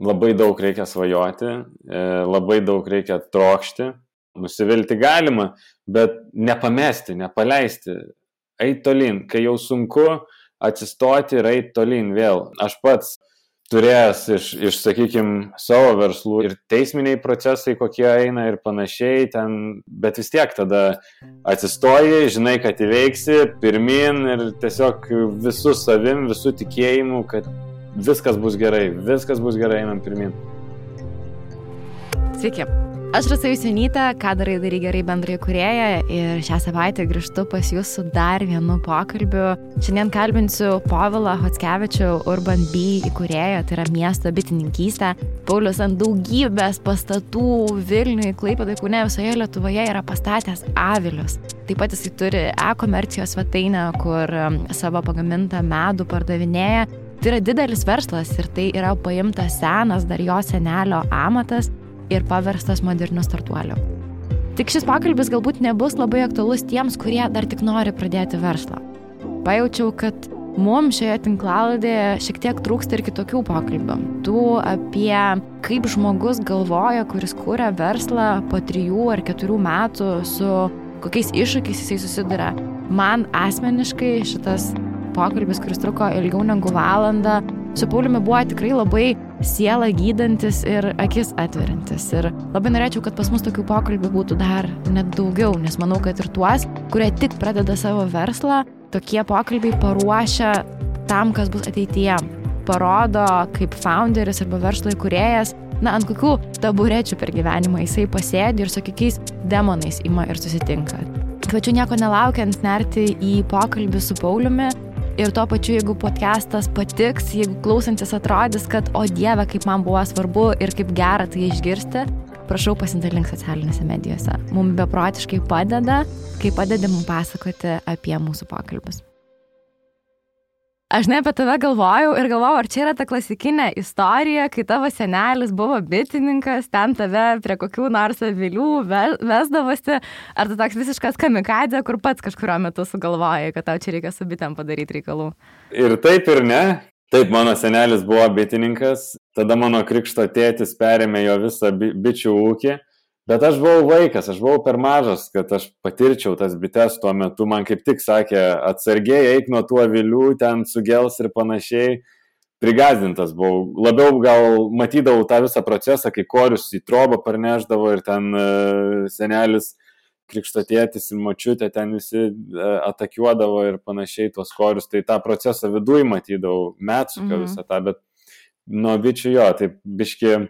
labai daug reikia svajoti, labai daug reikia trokšti, nusivilti galima, bet nepamesti, nepaleisti, eit tolyn, kai jau sunku atsistoti ir eit tolyn vėl. Aš pats turėjęs sakykime, savo verslų ir teisminiai procesai, kokie eina ir panašiai ten, bet vis tiek tada atsistoji, žinai, kad įveiksi, pirmin ir tiesiog visų savim, visų tikėjimu, kad viskas bus gerai, einam pirmin. Sveiki. Aš Rasa Jusionytė, Ką darai gerai bendraįkūrėja ir šią savaitę grįžtu pas jūs su dar vienu pokalbiu. Šiandien kalbinsiu Povilą Chockevičių, Urban Bee įkūrėją, tai yra miesto bitininkystė. Paulius ant daugybės pastatų Vilniuje, Klaipėdoje, Kaune, visoje Lietuvoje yra pastatęs avilius. Taip pat jisai turi e-komercijos svetainę, kur savo pagamintą medų pardavinėja. Tai yra didelis verslas ir tai yra paimtas senas dar jo senelio amatas ir paverstas moderniu startuoliu. Tik šis pokalbis galbūt nebus labai aktualus tiems, kurie dar tik nori pradėti verslą. Pajaučiau, kad mums šioje tinklalaidėje šiek tiek trūksta ir kitokių pokalbių. Tų apie kaip žmogus galvoja, kuris kūrė verslą po 3 ar 4 metų, su kokiais iššūkiais jisai susiduria. Man asmeniškai šitas pokalbis, kuris truko ilgiau negu valandą, su Pauliumi buvo tikrai labai sielą gydantis ir akis atveriantis. Ir labai norėčiau, kad pas mus tokių pokalbių būtų dar net daugiau, nes manau, kad ir tuos, kurie tik pradeda savo verslą, tokie pokalbiai paruošia tam, kas bus ateityje. Parodo, kaip founderis arba verslo įkūrėjas, ant kokių taburečių per gyvenimą jisai pasėdi ir su kokiais demonais ima ir susitinka. Kviečiu nieko nelaukiant nerti į pokalbį su Pauliumi. Ir tuo pačiu, jeigu podcastas patiks, jeigu klausantis atrodys, kad o Dieve, kaip man buvo svarbu ir kaip gera tai išgirsti, prašau pasidalink socialinėse medijose. Mums beprotiškai padeda, kai padedi mums pasakoti apie mūsų pokalbius. Aš ne apie tave galvojau, ar čia yra ta klasikinė istorija, kai tavo senelis buvo bitininkas, ten tave prie kokių nors avilių vesdavosi, ar tu toks visiškas kamikadzė, kur pats kažkurio metu sugalvojai, kad tau čia reikia su bitėm padaryti reikalų? Ir taip ir ne. Taip, mano senelis buvo bitininkas, tada mano krikšto tėtis perėmė jo visą bičių ūkį. Bet aš buvau vaikas, aš buvau per mažas, kad aš patirčiau tas bites tuo metu. Man kaip tik sakė, atsargiai eik nuo tų avilių, ten sugels ir panašiai. Prigazdintas buvau. Labiau gal matydavau tą visą procesą, kai korius į trobą parneždavo ir ten senelis, krikšto tėtis ir močiutė ten visi atakiuodavo ir panašiai tuos korius. Tai tą procesą viduj matydavau, metsuką visą tą, bet nuo bičių jo, taip biški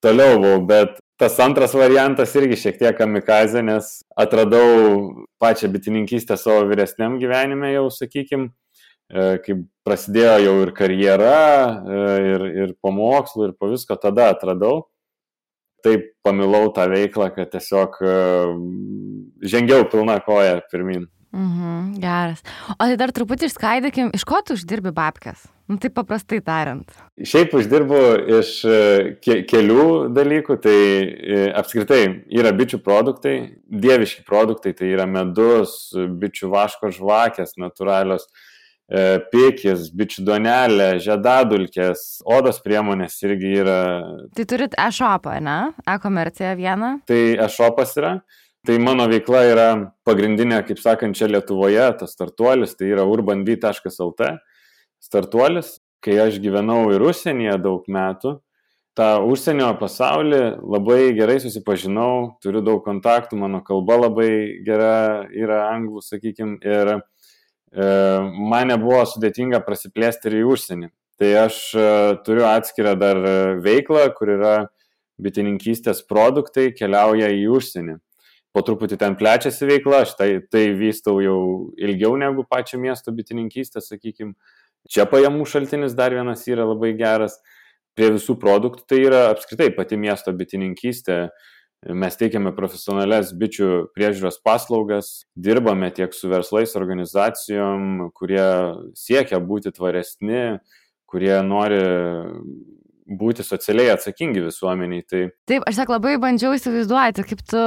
toliau buvau, bet tas antras variantas irgi šiek tiek kamikazė, nes atradau pačią bitininkystę savo vyresniam gyvenime jau, sakykim, kai prasidėjo jau ir karjera, ir po mokslų, ir po visko, tada atradau. Taip pamilau tą veiklą, kad tiesiog žengiau pilna koja pirmin. Geras. O tai dar truputį išskaidykim, iš ko tu uždirbi babkes? Taip paprastai tariant. Šiaip uždirbu iš kelių dalykų, tai apskritai yra bičių produktai, dieviški produktai, tai yra medus, bičių vaško žvakės, natūralios, pikis, bičių duonelė, žiedadulkės, odos priemonės irgi yra. Tai turit e-shopą, ne? E-komerciją vieną? Tai e-shopas yra. Tai mano veikla yra pagrindinė, kaip sakant, čia Lietuvoje, tas startuolis, tai yra urbanbee.lt startuolis. Kai aš gyvenau ir užsienyje daug metų, tą užsienio pasaulį labai gerai susipažinau, turiu daug kontaktų, mano kalba labai gera yra anglų, sakykim, ir man nebuvo sudėtinga prasiplėsti ir į užsienį. Tai aš turiu atskirą dar veiklą, kur yra bitininkystės produktai, keliauja į užsienį. Po truputį ten plečiasi veikla, aš tai vystau jau ilgiau negu pačią miesto bitininkystę, sakykim. Čia pajamų šaltinis dar vienas yra labai geras. Prie visų produktų tai yra apskritai pati miesto bitininkystė. Mes teikiame profesionalias bičių priežiūros paslaugas, dirbame tiek su verslais, organizacijom, kurie siekia būti tvaresni, kurie nori būti socialiai atsakingi visuomeniai. Taip, aš labai bandžiau įsivaizduoti, kaip tu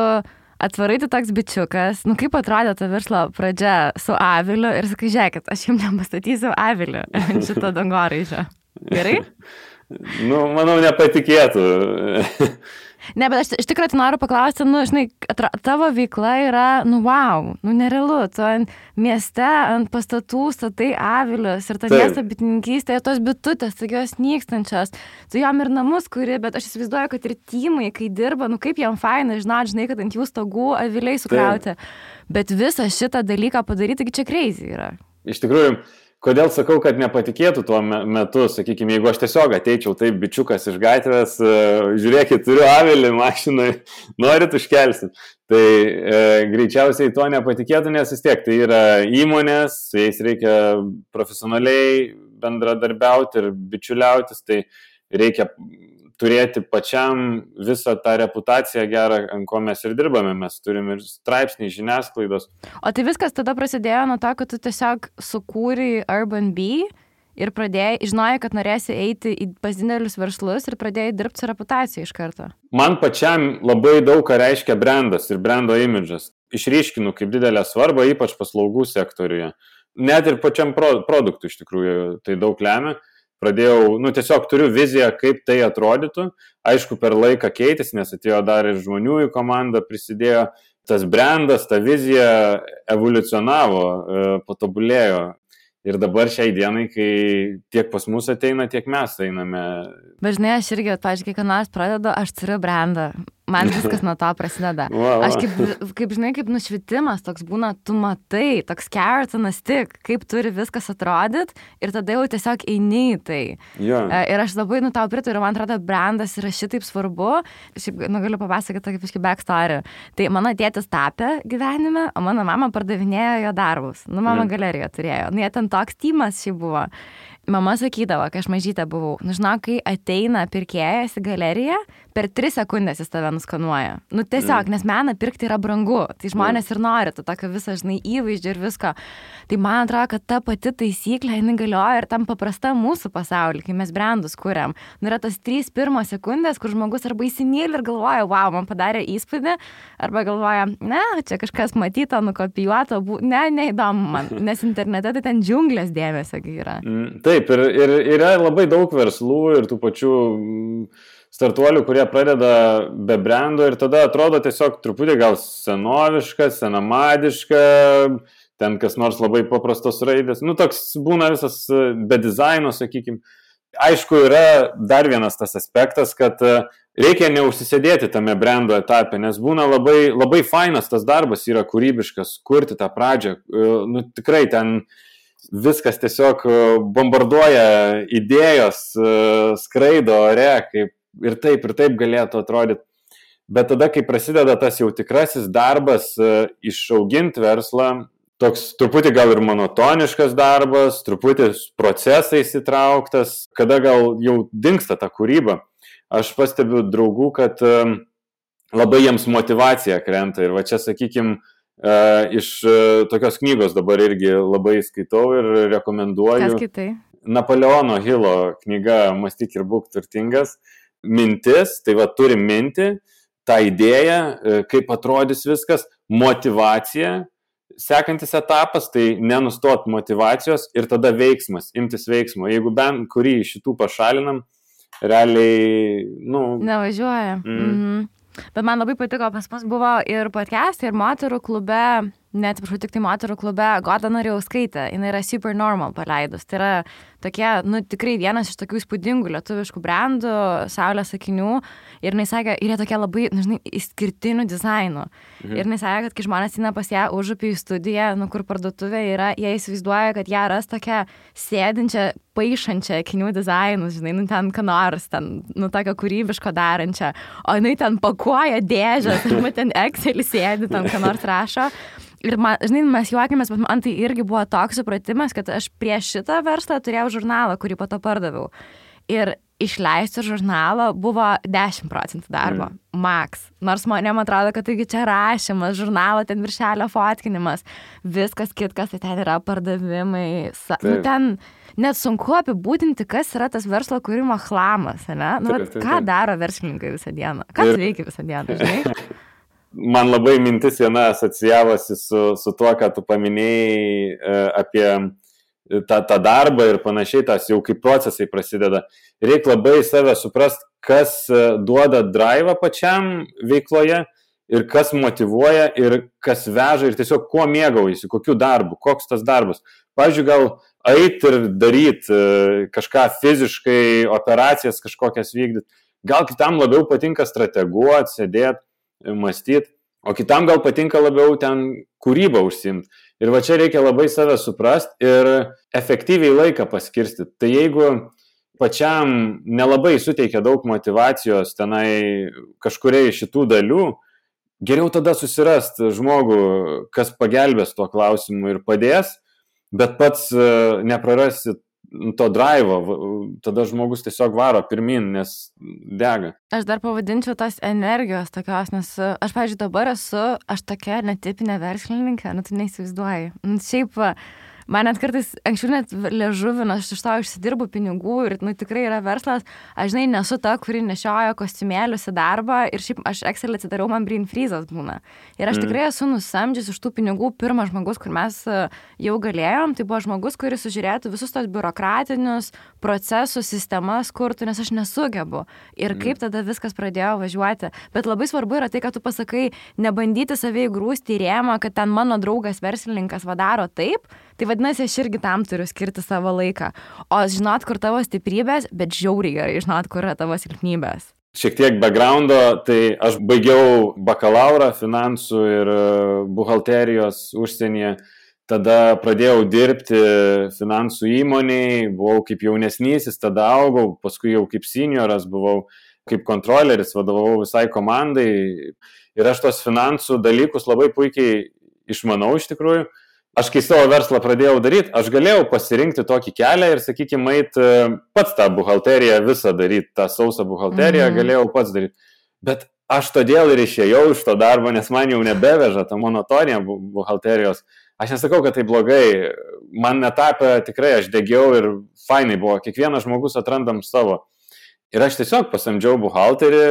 atvarai tu toks bičiukas, kaip atrodė ta verslo pradžia su aviliu ir sakai, žiūrėkit, aš jums nepastatysiu aviliu šito dangoraižio. Gerai? Manau, nepatikėtų. Ne, bet aš iš tikrųjų tai noriu paklausti, žinai, tavo veikla yra, wow, nerealu, tu ant mieste, ant pastatų statai avilius ir ta miesto bitininkystė, tos bitutės, taigi jos nykstančios, tu jom ir namus kuri, bet aš įsivaizduoju, kad ir timai, kai dirba, kaip jam faina, žinai, kad ant jų stogų aviliai sukrauti, bet visą šitą dalyką padaryti, taigi čia crazy yra. Iš tikrųjų, kodėl sakau, kad nepatikėtų tuo metu, sakykime, jeigu aš tiesiog ateičiau taip bičiukas iš gatvės, žiūrėkit, turiu avilį mašinai, norit užkelsim. Tai greičiausiai to nepatikėtų, nes vis tiek tai yra įmonės, su jais reikia profesionaliai bendradarbiauti ir bičiuliautis, tai reikia turėti pačiam visą tą reputaciją gerą, ant ko mes ir dirbame. Mes turime ir straipsnį, žiniasklaidos. O tai viskas tada prasidėjo nuo to, kad tu tiesiog sukūrei Urban Bee ir žinojai, kad norėsi eiti pas didelius verslus ir pradėjai dirbti su reputacija iš karto. Man pačiam labai daug ką reiškia brandas ir brando imidžas. Išryškinu kaip didelę svarbą, ypač paslaugų sektoriuje. Net ir pačiam produktui iš tikrųjų tai daug lemia. Pradėjau, tiesiog turiu viziją, kaip tai atrodytų. Aišku, per laiką keitėsi, nes atėjo dar ir žmonių į komandą, prisidėjo. Tas brandas, ta vizija evoliucionavo, patobulėjo. Ir dabar šiai dienai, kai tiek pas mus ateina, tiek mes einame. Bet žinai, aš irgi, pavyzdžiui, kai nors pradedu, aš turiu brandą. Man viskas nuo to prasideda. Aš kaip žinai, kaip nušvitimas toks būna, tu matai, toks carrot on a stick, kaip turi viskas atrodyt ir tada jau tiesiog eini į tai. Ir aš labai tau pritariu, man atrodo, brandas yra šitaip svarbu. Šiaip, galiu papasakoti tokį kažkokį backstory. Tai mano tėtis tapė gyvenime, o mano mama pardavinėjo jo darbus. Mama galeriją turėjo. Jie ten toks tymas šiaip buvo. Mama sakydavo, kai aš mažytė buvau, žinau, kai ateina pirkėjas į galeriją, per 3 sekundės jis tave nuskanuoja. Tiesiog, nes meną pirkti yra brangu, tai žmonės ir nori, tu tokio visą, žinai, įvaizdžio ir visko. Tai man atrodo, kad ta pati taisyklė, jinai galioja ir tam paprasta mūsų pasaulyje, kai mes brandus kuriam. Yra tas 3 pirmos sekundės, kur žmogus arba įsimyli ir galvoja, wow, man padarė įspūdį, arba galvoja, ne, čia kažkas matyto, nukopijuoto, neįdomu man, nes internete tai ten džiunglės dėmesio yra. Taip, ir yra labai daug verslų ir tų pačių startuolių, kurie pradeda be brando ir tada atrodo tiesiog truputį gal senoviška, senamadiška, ten kas nors labai paprastos raidės. Toks būna visas be dizaino, sakykime. Aišku, yra dar vienas tas aspektas, kad reikia neužsisėdėti tame brando etape, nes būna labai, labai fainas tas darbas, yra kūrybiškas, kurti tą pradžią. Tikrai ten viskas tiesiog bombarduoja idėjos, skraido ore, ir taip galėtų atrodyti. Bet tada, kai prasideda tas jau tikrasis darbas, išauginti verslą, toks truputį gal ir monotoniškas darbas, truputį procesais įtrauktas, kada gal jau dingsta ta kūryba. Aš pastebiu draugų, kad labai jiems motyvacija krenta ir va čia, sakykime, iš tokios knygos dabar irgi labai skaitau ir rekomenduoju. Kas skaitai? Napoleono Hilo knyga Mąstyk ir būk turtingas. Mintis, tai va turim mintį, tą idėją, kaip atrodys viskas, motyvacija, sekantis etapas, tai nenustot motyvacijos ir tada veiksmas, imtis veiksmo. Jeigu bent kurį iš šitų pašalinam, realiai, nevažiuoja. Bet man labai patiko, pas mus buvo ir podcastai, ir moterų klube, neatsiprašau, tik tai moterų klube, Goda Norėjauskaitė, jinai yra Super Normal paleidus. Tai yra tokie, tikrai vienas iš tokių įspūdingų lietuviškų brandų, saulės akinių. Ir jinai sakė, ir jie tokie labai, žinai, išskirtinių dizainų. Ir jinai sakė, kad kai žmonės eina pas ją užupį į studiją, kur parduotuvė yra, jie įsivaizduoja, kad ją ras tokią sėdinčią, paišančią akinių dizainus, žinai, ten ką nors, ten, tokio kūrybiško darančią. O jinai ten pakuoja dėžės, arba ten Excelį sėdi, ten ką nors rašo. Ir man, žinai, mes juokėmės, bet man tai irgi buvo toks supratimas, kad aš prieš šitą verslą turėjau žurnalą, kurį po to pardaviau. Ir išleisti žurnalo buvo 10% darbo, max. Nors man atrodo, kad taigi čia rašymas, žurnalo, ten viršelio fotkinimas, viskas kitkas, tai ten yra pardavimai. Ten net sunku apibūdinti, kas yra tas verslo kūrimo chlamas, ne? Ką daro verslininkai visą dieną? Kas veikia visą dieną, žinai? Man labai mintis viena asocijavosi su tuo, ką tu paminėjai apie tą darbą ir panašiai, tas jau kaip procesai prasideda. Reikia labai save suprast, kas duoda drive'ą pačiam veikloje ir kas motyvuoja ir kas veža ir tiesiog kuo mėgaujasi, kokiu darbu, koks tas darbas. Pavyzdžiui, gal eit ir daryti kažką fiziškai, operacijas kažkokias vykdyti. Gal kitam labiau patinka strateguoti, sėdėti, mąstyti, o kitam gal patinka labiau ten kūrybą užsiimti. Ir va čia reikia labai save suprast ir efektyviai laiką paskirstyti. Tai jeigu pačiam nelabai suteikia daug motyvacijos tenai kažkuriai šitų dalių, geriau tada susirast žmogų, kas pagelbės tuo klausimu ir padės, bet pats neprarasi to drive'o, tada žmogus tiesiog varo pirmin, nes dega. Aš dar pavadinčiau tos energijos tokios, nes aš, pavyzdžiui, dabar aš tokia netipinė verslininkė, tu neįsivaizduoji. Šiaip man net kartais anksčiau net liežuvina, aš iš to išsidirbu pinigų ir tikrai yra verslas. Aš, žinai, nesu ta, kuri nešioja kostiumėlius į darbą ir šiaip aš Excel atsidariau, man brain freezas būna. Ir aš tikrai esu nusamdžius iš tų pinigų pirmas žmogus, kur mes jau galėjom, tai buvo žmogus, kuris sužiūrėtų visus tos biurokratinius procesus, sistemas kurtų, nes aš nesugebu. Ir kaip tada viskas pradėjo važiuoti. Bet labai svarbu yra tai, kad tu pasakai, nebandyti save įgrūsti į rėmą, kad ten mano draugas verslininkas vadaro taip. Tai vadinasi, aš irgi tam turiu skirti savo laiką. O žinot, kur tavo stiprybės, bet žiauriai gerai žinot, kur yra tavo silpnybės. Šiek tiek backgroundo, tai aš baigiau bakalaurą finansų ir buhalterijos užsienyje. Tada pradėjau dirbti finansų įmonėje, buvau kaip jaunesnysis, tada augau, paskui jau kaip senioras buvau, kaip kontroleris, vadovavau visai komandai. Ir aš tos finansų dalykus labai puikiai išmanau iš tikrųjų. Aš kai savo verslą pradėjau daryti, aš galėjau pasirinkti tokį kelią ir, sakykime, pats tą buhalteriją visą daryti, tą sausą buhalteriją galėjau pats daryti. Bet aš todėl ir išėjau iš to darbo, nes man jau nebeveža ta monotonija buhalterijos. Aš nesakau, kad tai blogai, man netapė tikrai, aš degiau ir fainai buvo, kiekvienas žmogus atrandam savo. Ir aš tiesiog pasamdžiau buhalterį,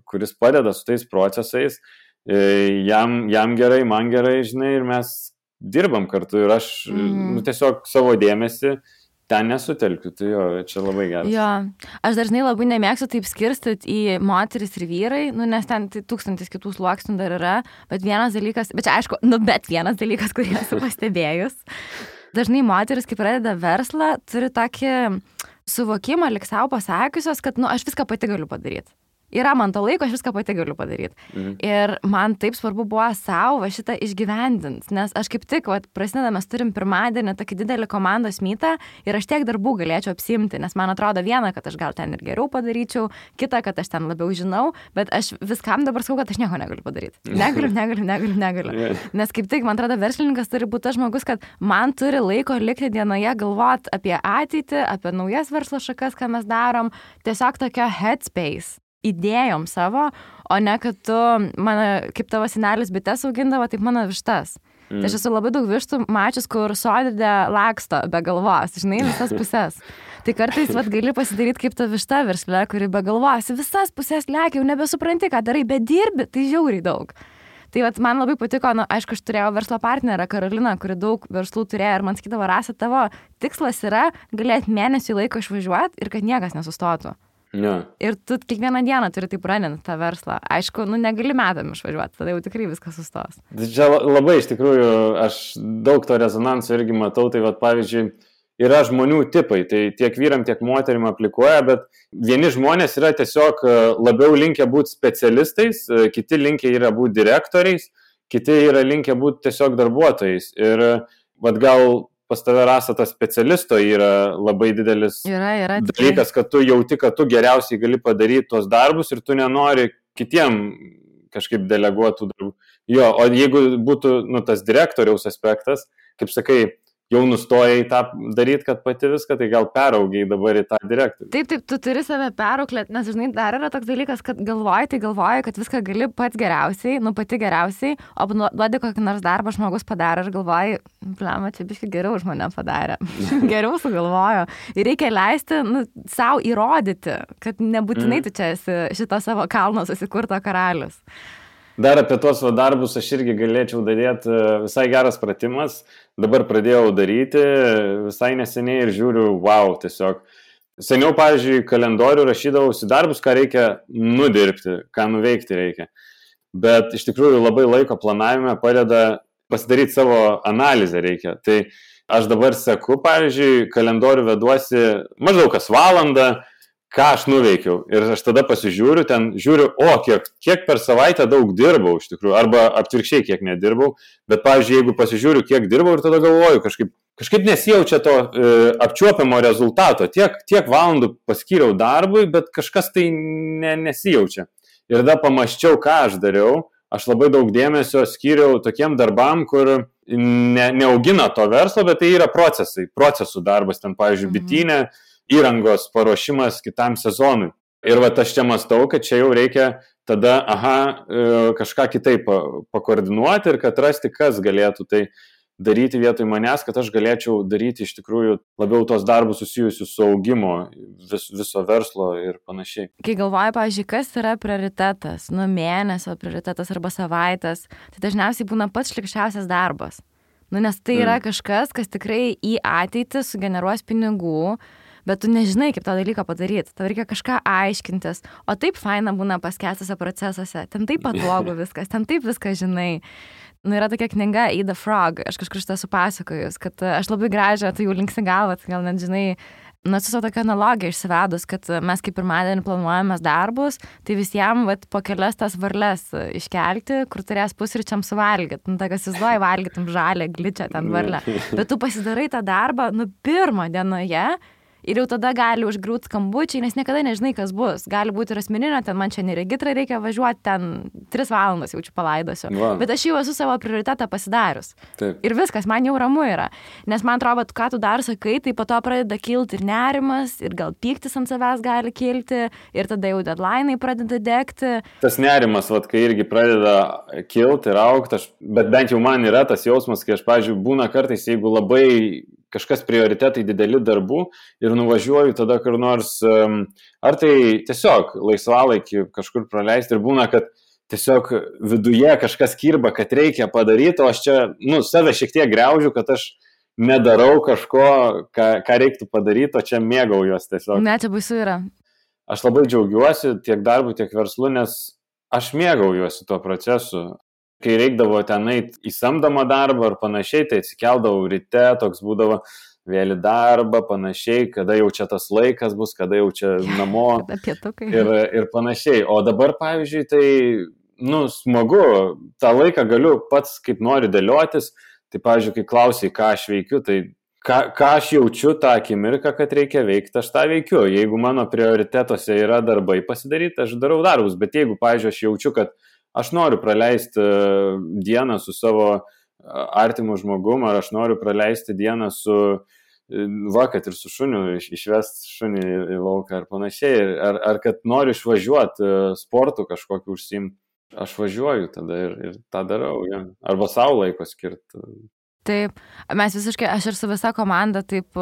kuris padeda su tais procesais, jam gerai, man gerai, žinai, ir mes dirbam kartu ir aš tiesiog savo dėmesį ten nesutelkiu, tai jo, čia labai geras. Jo, aš dažnai labai nemėgstu taip skirstyti į moteris ir vyrai, nes ten tai 1000 kitų sluoksnių dar yra, bet vienas dalykas, bet čia aišku, vienas dalykas, kurį esu pastebėjus. Dažnai moteris, kai pradeda verslą, turi tokį suvokimą, lyg savo pasakiusios, kad aš viską pati galiu padaryti. Yra man to laiko, aš viską pati galiu padaryti. Ir man taip svarbu buvo savo šitą išgyvendinti, nes aš kaip tik, prasideda, mes turim pirmadienį tokį didelį komandos mytą ir aš tiek darbų galėčiau apsiimti, nes man atrodo viena, kad aš gal ten ir geriau padaryčiau, kita, kad aš ten labiau žinau, bet aš viskam dabar sakau, kad aš nieko negaliu padaryti. Negaliu. Nes kaip tik, man atrodo, verslininkas turi būti tas žmogus, kad man turi laiko likti dienoje galvoti apie ateitį, apie naujas verslo šakas, ką mes darom, tiesiog tokio headspace. Idėjom savo, o ne kad tu, kaip tavo senelis bites augindavo, taip mano vištas. Tai aš esu labai daug vištų mačius, kur sodidė laksto be galvos, žinai, visas pusės. Tai kartais gali pasidaryti kaip ta višta versle, kuri be galvos, visas pusės lekia, jau nebesupranti, ką darai, bet dirbi, tai žiauriai daug. Tai man labai patiko, aišku, aš turėjau verslo partnerę Karoliną, kuri daug verslų turėjo ir man sakydavo, Rasa, tavo tikslas yra galėti mėnesį laiko išvažiuoti ir kad niekas nesustotų. Ja. Ir tu kiekvieną dieną turi taip raninti tą verslą. Aišku, negali metam išvažiuoti, tada jau tikrai viskas sustos. Čia labai iš tikrųjų, aš daug to rezonanso irgi matau, tai pavyzdžiui, yra žmonių tipai, tai tiek vyram, tiek moterim aplikuoja, bet vieni žmonės yra tiesiog labiau linkę būti specialistais, kiti linkę yra būti direktoriais, kiti yra linkę būti tiesiog darbuotojais. Ir gal pas tave, Rasa, tas specialisto yra labai didelis dalykas, kad tu jauti, kad tu geriausiai gali padaryti tos darbus ir tu nenori kitiem kažkaip deleguotų darbų. Jo, o jeigu būtų tas direktoriaus aspektas, kaip sakai, jau nustojai tą daryti, kad pati viską, tai gal peraugiai dabar į tą direktorių. Taip, tu turi save perauklėti, nes žinai, dar yra toks dalykas, kad galvoji, kad viską gali pats geriausiai, pati geriausiai, o duodi kokį nors darbą žmogus padarė ir galvoji, čia biškai geriau už mane padarė, geriau sugalvojo. Ir reikia leisti savo įrodyti, kad nebūtinai tu čia esi šito savo kalno susikurto karalius. Dar apie tuos darbus aš irgi galėčiau daryti, visai geras pratimas, dabar pradėjau daryti visai neseniai ir žiūriu, wow, tiesiog. Seniau, pavyzdžiui, kalendorių rašydavausi darbus, ką reikia nudirbti, ką nuveikti reikia. Bet iš tikrųjų labai laiko planavime padeda pasidaryti savo analizę reikia. Tai aš dabar seku, pavyzdžiui, kalendorių veduosi maždaug kas valandą, ką aš nuveikiau. Ir aš tada pasižiūriu, ten žiūriu, kiek per savaitę daug dirbau iš tikrųjų, arba atvirkščiai kiek nedirbau. Bet, pavyzdžiui, jeigu pasižiūriu, kiek dirbau ir tada galvoju, kažkaip nesijaučia to apčiuopiamo rezultato. Tiek valandų paskyriau darbui, bet kažkas tai nesijaučia. Ir tada pamaščiau, ką aš dariau. Aš labai daug dėmesio skyriau tokiem darbam, kur neaugina to verslo, bet tai yra procesų darbas. Ten, pavyzdžiui, bitynė, įrangos paruošimas kitam sezonui. Ir va, aš čia mąstau, kad čia jau reikia tada, kažką kitaip pakoordinuoti ir kad rasti, kas galėtų tai daryti vietoj manęs, kad aš galėčiau daryti iš tikrųjų labiau tos darbus susijusius su augimo viso verslo ir panašiai. Kai galvoju, pavyzdžiui, kas yra prioritetas, mėnesio prioritetas arba savaitės, tai dažniausiai būna pats šlikščiausias darbas. Nes tai yra kažkas, kas tikrai į ateitį sugeneruos pinigų, bet tu nežinai, kaip tą dalyką padaryti. Tau reikia kažką aiškintis. O taip faina būna paskęstose procesuose. Ten taip patogu viskas, ten taip viską žinai. Yra tokia knyga Eat the Frog. Aš kažkur šitą supasakojus, kad aš labai gražią, tai jau linksi galvą, gal net žinai, su tokia analogija išsivedus, kad mes kaip pirmadienį planuojamės darbus, tai visiems po kelias tas varles iškelti, kur turės pusryčiam suvalgyti. Tai kas įsivaizduoja, valgytum žalę, gličią ten varlę. Bet tu pasidarai tą darbą, pirmą dienoje, ir jau tada gali užgriūti skambučiai, nes niekada nežinai, kas bus. Gali būti ir asmeninio, ten man čia neregitrą reikia važiuoti, ten 3 valandas jaučiu palaidosiu. Wow. Bet aš jau esu savo prioritetą pasidarius. Taip. Ir viskas, man jau ramu yra. Nes man atrodo, ką tu dar sakai, tai po to pradeda kilti ir nerimas, ir gal pyktis ant savęs gali kilti, ir tada jau deadline'ai pradeda degti. Tas nerimas, kai irgi pradeda kilti ir augti, bet bent jau man yra tas jausmas, kai aš, pavyzdžiui, būna kartais, jeigu labai kažkas prioritetai dideli darbų ir nuvažiuoju tada kur nors, ar tai tiesiog laisvalaikį kažkur praleisti ir būna, kad tiesiog viduje kažkas kirba, kad reikia padaryti, o aš čia, save šiek tiek griaužiu, kad aš nedarau kažko, ką reiktų padaryti, o čia mėgaujuos tiesiog. Ne, čia baisu yra. Aš labai džiaugiuosi tiek darbu, tiek verslu, nes aš mėgaujuosi tuo procesu. Kai reikdavo ten eiti į samdomą darbą ar panašiai, tai atsikeldavau ryte, toks būdavo vėl į darbą, panašiai, kada jau čia tas laikas bus, kada jau čia namo ir panašiai. O dabar, pavyzdžiui, tai, smagu, tą laiką galiu pats kaip noriu dėliotis, tai, pavyzdžiui, kai klausiai, ką aš veikiu, tai ką aš jaučiu tą akimirką, kad reikia veikti, aš tą veikiu. Jeigu mano prioritetuose yra darbai pasidaryti, aš darau darbus, bet jeigu, pavyzdžiui, aš jaučiu, kad aš noriu praleisti dieną su savo artimu žmogum, ar aš noriu praleisti dieną kad ir su šuniu, išvesti šunį į lauką ar panašiai, ar kad noriu išvažiuoti sportų kažkokį užsiimti, aš važiuoju tada ir tą darau, ja. Arba savo laiko skirti. Taip, mes visiškai, aš ir su visa komanda taip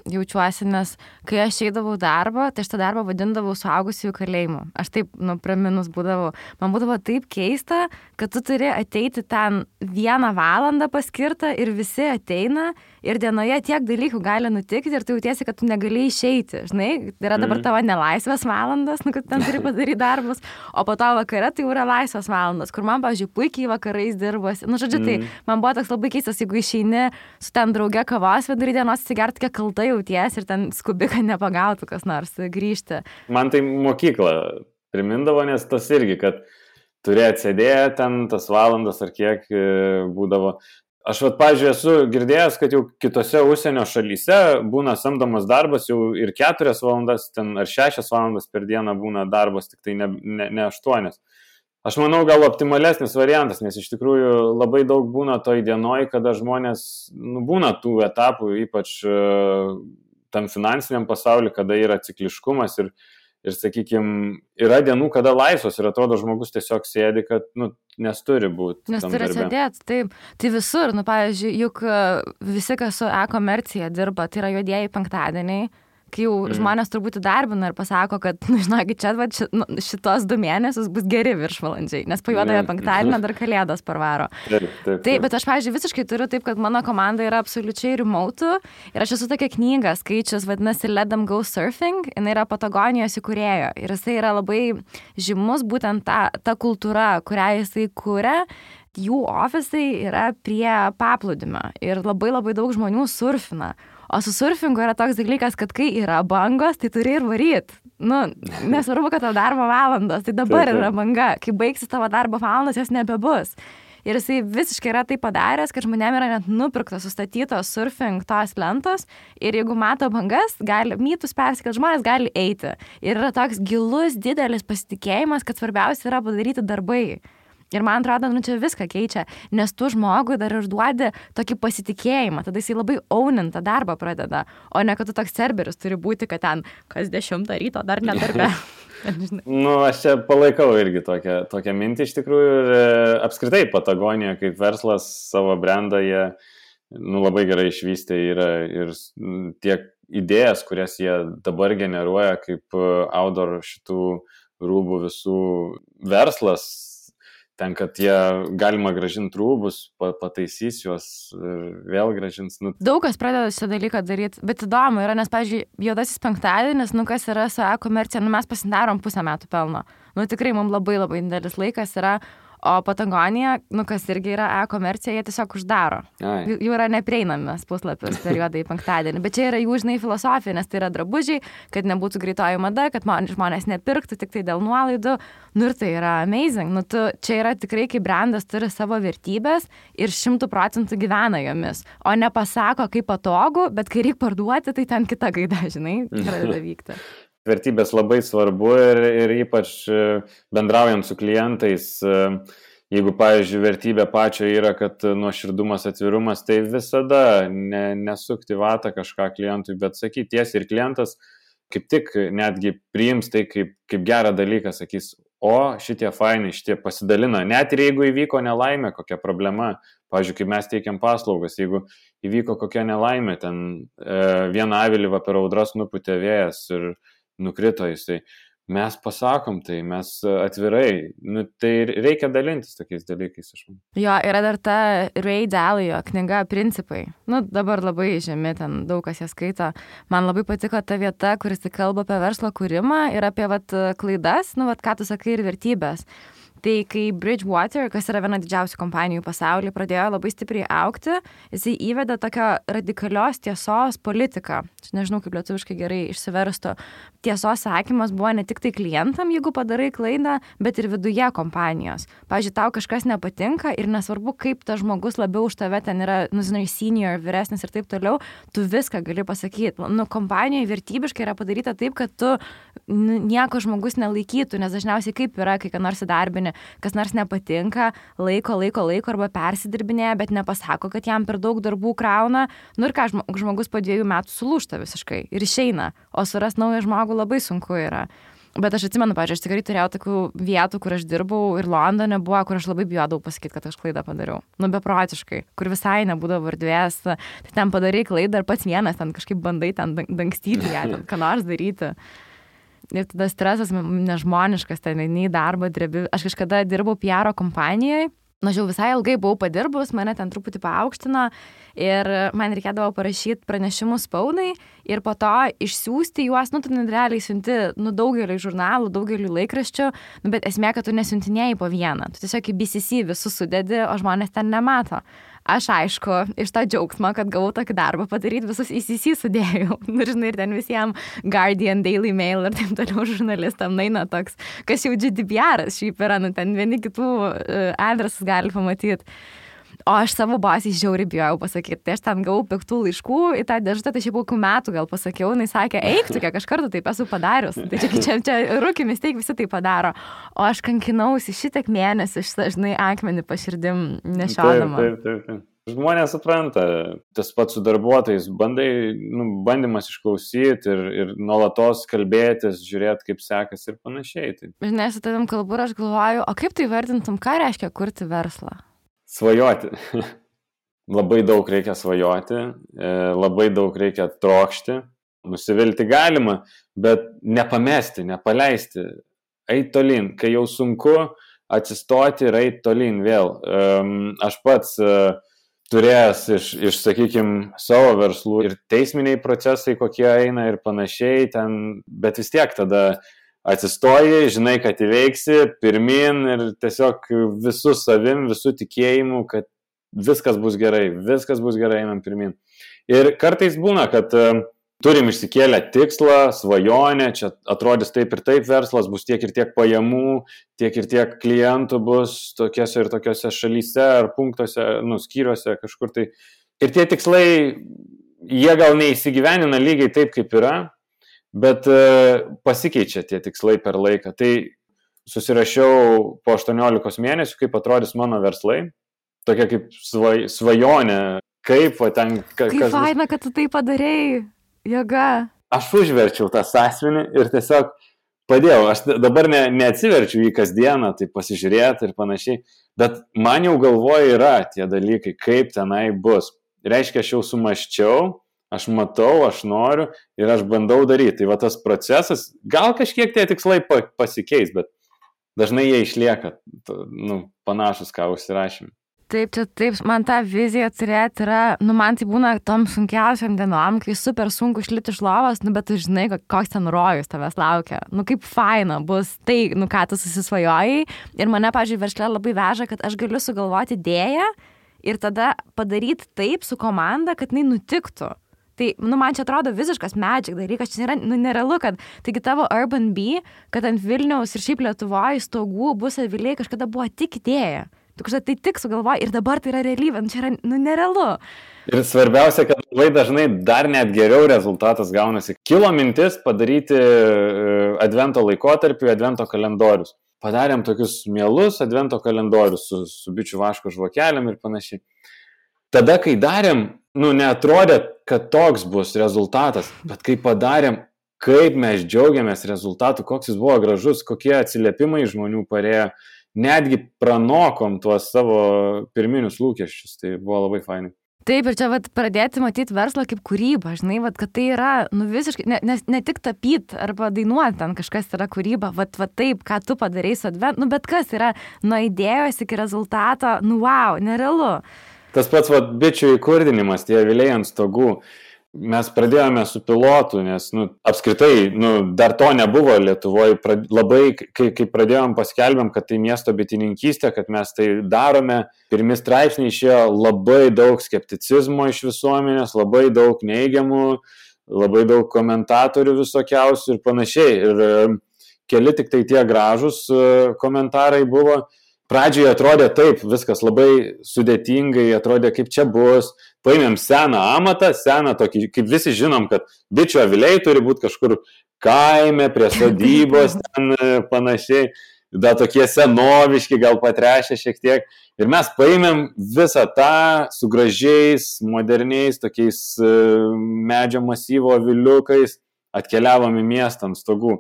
jaučiuosi, nes kai aš eidavau darbą, tai aš tą darbą vadindavau suaugusiųjų kalėjimu. Aš taip, praminus būdavau. Man būdavo taip keista, kad tu turi ateiti ten 1 valandą paskirtą ir visi ateina ir dienoje tiek dalykų gali nutikti ir tu jautiesi, kad tu negali išeiti. Žinai, yra dabar tavo nelaisvės valandas, kad ten turi padaryti darbus, o po to vakare tai yra laisvės valandas, kur man, pavyzdžiui, puikiai vakarais dirbosi. Žodžiu, tai man buvo toks labai keistas, jeigu išeini su ten drauge kavos vidury dienos atsigerti, kiek kalta jauties ir ten skubi, kad nepagautų kas nors grįžti. Man tai mokykla primindavo, nes tas irgi, kad turi atsėdėti ten tas valandas ar kiek būdavo. Aš, pavyzdžiui, esu girdėjęs, kad jau kitose užsienio šalyse būna samdomas darbas jau ir 4 valandas ten, ar 6 valandas per dieną būna darbas, tik tai ne 8. Aš manau, gal optimalesnis variantas, nes iš tikrųjų labai daug būna toj dienoj, kada žmonės, būna tų etapų, ypač tam finansiniam pasauliu, kada yra cikliškumas ir sakykime, yra dienų, kada laisvos ir atrodo žmogus tiesiog sėdi, kad, nes turi būti. Nes turi sėdėti, taip. Tai visur, pavyzdžiui, juk visi, kas su e-komercija dirba, tai yra juodieji penktadieniai, kai jau žmonės turbūt įdarbina ir pasako, kad, žinokit, čia šitos 2 mėnesius bus geri viršvalandžiai, nes po juodojo penktadienio dar kalėdos parvaro. Taip, bet aš, pavyzdžiui, visiškai turiu taip, kad mano komanda yra absoliučiai remote ir aš esu tokia knygą skaičius, vadinasi Let Them Go Surfing, jinai yra Patagonijos įkūrėjo ir jisai yra labai žymus būtent ta kultūra, kurią jisai kūrė. Jų ofisai yra prie paplūdimio ir labai daug žmonių surfina. O su surfingu yra toks dalykas, kad kai yra bangos, tai turi ir varyt. Nesvarbu, kad tavo darbo valandos, tai dabar yra banga. Kai baigsi tavo darbo valandos, jos nebebus. Ir jisai visiškai yra tai padaręs, kad žmonėm yra net nupirktos, sustatytos surfing tos lentos ir jeigu mato bangas, mytus persikelt, žmonės gali eiti. Ir yra toks gilus, didelis pasitikėjimas, kad svarbiausia yra padaryti darbai. Ir man atrodo, čia viską keičia, nes tu žmogui dar ir duodi tokį pasitikėjimą, tada jisai labai ownintą darbą pradeda, o ne kad tu toks serberis turi būti, kad ten kas 10 ryto dar nedarbe. Aš čia palaikau irgi tokią mintį iš tikrųjų ir apskritai Patagonija kaip verslas savo brandą jie labai gerai išvystė yra ir tiek idėjas, kurias jie dabar generuoja kaip outdoor šitų rūbų visų verslas, ten, kad jie galima gražinti rūbus, pataisys juos ir vėl gražins. Daug kas pradeda šitą dalyką daryti, bet įdomu yra, nes, pavyzdžiui, juodasis penktadienis, kas yra su e-komercija, mes pasidarom 5 metų pelno. Tikrai mums labai didelis laikas yra, o Patagonija, kas irgi yra e-komercija, jie tiesiog uždaro. Jų yra neprieinamas puslapis per juodąjį penktadienį, bet čia yra jų, filosofija, nes tai yra drabužiai, kad nebūtų greitoji mada, kad žmonės nepirktų tik tai dėl nuolaidų. Ir tai yra amazing. Čia yra tikrai, kai brandas turi savo vertybės ir 100% gyvena jomis, o nepasako, kaip patogu, bet kai reikia parduoti, tai ten kita gaida, pradeda vykti. Vertybės labai svarbu ir ypač bendraujant su klientais, jeigu, pavyzdžiui, vertybė pačio yra, kad nuoširdumas, atvirumas, tai visada nesukti vatą kažką klientui, bet sakyti tiesiai ir klientas kaip tik netgi priims tai kaip gerą dalyką, sakys, o šitie fainai, šitie pasidalina, net ir jeigu įvyko nelaimė, kokia problema, pavyzdžiui, kai mes teikiam paslaugas, jeigu įvyko kokia nelaimė, ten vieną avilį per audras nupūtė vėjas ir nukrito jisai. Mes pasakom tai, mes atvirai, tai reikia dalintis tokiais dalykais, aš manau. Jo, yra dar ta Ray Dalio knyga Principai. Dabar labai žemi, ten daug kas ją skaito. Man labai patiko ta vieta, kuris kalba apie verslo kūrimą ir apie klaidas, ką tu sakai, ir vertybės. Tai kai Bridgewater, kas yra viena didžiausių kompanijų pasaulyje, pradėjo labai stipriai augti, jisai įvedė tokią radikalios tiesos politiką. Nežinau, kaip lietuviškai gerai išsiverstų. Tiesos sakymas buvo ne tik tai klientam, jeigu padarai klaidą, bet ir viduje kompanijos. Pavyzdžiui, tau kažkas nepatinka ir nesvarbu, kaip tas žmogus labiau už tave ten yra, senior, vyresnis ir taip toliau, tu viską gali pasakyti. Kompanijoje vertybiškai yra padaryta taip, kad tu nieko žmogus nelaikytų, nes dažniausiai kaip yra, kai ką nors įdarbini, kas nors nepatinka, laiko arba persidirbinėja, bet nepasako, kad jam per daug darbų krauna. Ir ką, žmogus po 2 metų sulūžta visiškai ir išeina, o surast naują žmogų labai sunku yra. Bet aš atsimenu, pavyzdžiui, aš tikrai turėjau tokių vietų, kur aš dirbau ir Londone buvo, kur aš labai bijodavau pasakyti, kad aš klaidą padariau. Beprotiškai, kur visai nebūdavo erdvės, tai ten padarai klaidą ir pats vienas ten kažkaip bandai ten dangstyti ją, ten ką nors daryti. Ir tada stresas nežmoniškas, ten į darbą drebi. Aš kažkada dirbau PR kompanijoje, jau visai ilgai buvau padirbus, mane ten truputį paaukštino ir man reikėdavo parašyti pranešimus spaudai ir po to išsiųsti juos, tu realiai siunti daugeliu žurnalų, daugeliu laikraščių, bet esmė, kad tu nesiuntinėjai po vieną, tu tiesiog į BCC visus sudedi, o žmonės ten nemato. Aš, aišku, iš tą džiaugsmą, kad gavau tokį darbą padaryti, visus ECC sudėjau. Ir ten visiems Guardian, Daily Mail ir taip toliau žurnalistam naina toks, kas jau GDPR-as šiaip yra, ten vieni kitų adresus gali pamatyti. O aš savo bosį žiauriai bijojau pasakyti. Tai aš ten gavau piktų laiškų į tą dėžutę, tai šiaip kokių metų gal pasakiau, jinai sakė, eik tu, kiek aš kartų taip esu padarius. Tai čia rūkimis, teik visi tai padaro. O aš kankinausi šitiek mėnesių, žinai, akmenį paširdim nešiodama. Taip. Žmonės supranta, tas pats su darbuotojais, bandymas išklausyti ir nuolatos kalbėtis, žiūrėti, kaip sekasi ir panašiai. Žinai, su tavim kalbu ir aš galvoju, o kaip tai vertintum, ką reiškia kurti verslą? Svajoti. Labai daug reikia svajoti, labai daug reikia trokšti nusivilti galima, bet nepamesti, nepaleisti, eit tolyn, kai jau sunku atsistoti ir eit tolyn vėl. Aš pats turėjęs iš sakykime, savo verslų ir teisminiai procesai, kokie eina ir panašiai, bet vis tiek tada atsistoji, žinai, kad įveiksi, pirmin ir tiesiog visų savim, visų tikėjimu, kad viskas bus gerai, einam pirmin. Ir kartais būna, kad turim išsikėlę tikslą, svajonę, čia atrodys taip ir taip verslas, bus tiek ir tiek pajamų, tiek ir tiek klientų bus tokiose ir tokiose šalyse ar punktuose, skyriuose kažkur tai. Ir tie tikslai, jie gal neįsigyvenina lygiai taip, kaip yra, bet pasikeičia tie tikslai per laiką. Tai susirašiau po 18 mėnesių, kaip atrodys mano verslai, tokia kaip svajonė, kaip ten... Kaip faina, kad tu tai padarėjai. Jėga. Aš užverčiau tą sąsiuvinį ir tiesiog padėjau. Aš dabar neatsiverčiu jį kasdieną, tai pasižiūrėti ir panašiai, bet man jau galvoje yra tie dalykai, kaip tenai bus. Reiškia, aš jau sumaščiau, aš matau, aš noriu ir aš bandau daryti. Tai va tas procesas, gal kažkiek tie tikslai pasikeis, bet dažnai jie išlieka panašus, ką užsirašėme. Taip, man tą viziją turėti yra, man tai būna tom sunkiausiam dienom, kai super sunku išlipti iš lovos, bet tu žinai, koks ten rojus tavęs laukia. Kaip faina bus tai, ką tu susisvajojai. Ir mane, pavyzdžiui, versle labai veža, kad aš galiu sugalvoti idėją ir tada padaryti taip su komanda, kad jinai nutiktų. Tai, man čia atrodo visiškas magic dalykas, čia yra, nerealu, kad, taigi tavo Urban Bee, kad ant Vilniaus ir šiaip Lietuvoje stogų bus aviliai kažkada buvo tik idėja. Tu kažką tai tik sugalvoji ir dabar tai yra realybė, čia yra nerealu. Ir svarbiausia, kad labai dažnai dar net geriau rezultatas gaunasi. Kilo mintis padaryti advento laikotarpį, advento kalendorius. Padarėm tokius mielus advento kalendorius su bičių vaško žvakelėm ir panašiai. Tada, kai darėm, neatrodė, kad toks bus rezultatas, bet kai padarėm, kaip mes džiaugiamės rezultatu, koks jis buvo gražus, kokie atsiliepimai žmonių parėjo, netgi pranokom tuos savo pirminius lūkesčius, tai buvo labai fainai. Taip, ir čia pradėti matyti verslą kaip kūrybą, žinai, kad tai yra, visiškai, ne tik tapyti arba dainuoti ten kažkas yra kūryba, taip, ką tu padarai su advent, bet kas yra nuo idėjos iki rezultato, wow, nerealu. Tas pats bičių įkurdinimas, tie aviliai ant stogų. Mes pradėjome su pilotu, nes apskritai dar to nebuvo Lietuvoje. Labai, kai pradėjom paskelbėm, kad tai miesto bitininkystė, kad mes tai darome, pirmi straipsniai išėjo labai daug skepticizmo iš visuomenės, labai daug neigiamų, labai daug komentatorių visokiausių ir panašiai. Ir keli tik tai tie gražūs komentarai buvo. Pradžioje atrodė taip, viskas labai sudėtingai, atrodė kaip čia bus. Paėmėm seną amatą, seną tokį, kaip visi žinom, kad bičių aviliai turi būti kažkur kaime, prie sodybos, ten panašiai, da tokie senoviški, gal patrešę šiek tiek. Ir mes paėmėm visą tą su gražiais, moderniais, tokiais medžio masyvo aviliukais, atkeliavom į miestą ant stogų.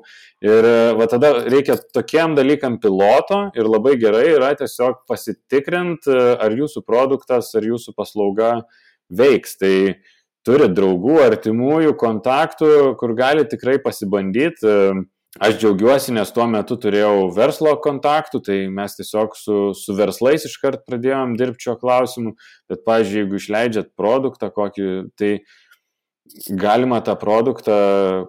Ir tada reikia tokiam dalykam piloto ir labai gerai yra tiesiog pasitikrinti, ar jūsų produktas, ar jūsų paslauga veiks. Tai turi draugų, artimųjų, kontaktų, kur gali tikrai pasibandyti. Aš džiaugiuosi, nes tuo metu turėjau verslo kontaktų, tai mes tiesiog su verslais iškart pradėjom dirbti šio klausimu. Bet, pavyzdžiui, jeigu išleidžiat produktą kokį, tai galima tą produktą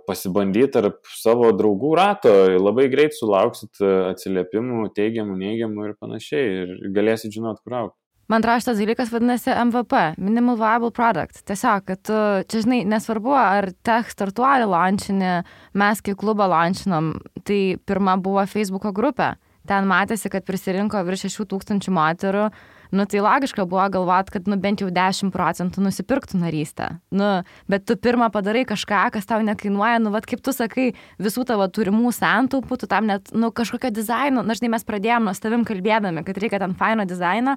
pasibandyti tarp savo draugų rato, labai greit sulauksit atsiliepimų, teigiamų, neigiamų ir panašiai ir galėsit žinot, kur aukti. Man atrodo, šitas dalykas vadinasi MVP, Minimal Viable Product. Tiesiog, kad tu, čia žinai, nesvarbu, ar tech startuolį launčinį, mes kai klubą launčinom, tai pirma buvo Facebooko grupė. Ten matėsi, kad prisirinko virš 6,000 moterų. Tai logiška buvo galvot, kad bent jau 10% nusipirktų narystę. Bet tu pirmą padarai kažką, kas tau nekainuoja, kaip tu sakai, visų tavo turimų santaupų, tu tam net, kažkokio dizaino, žinai, mes pradėjom nuo tavim kalbėdami, kad reikia ten faino dizaino,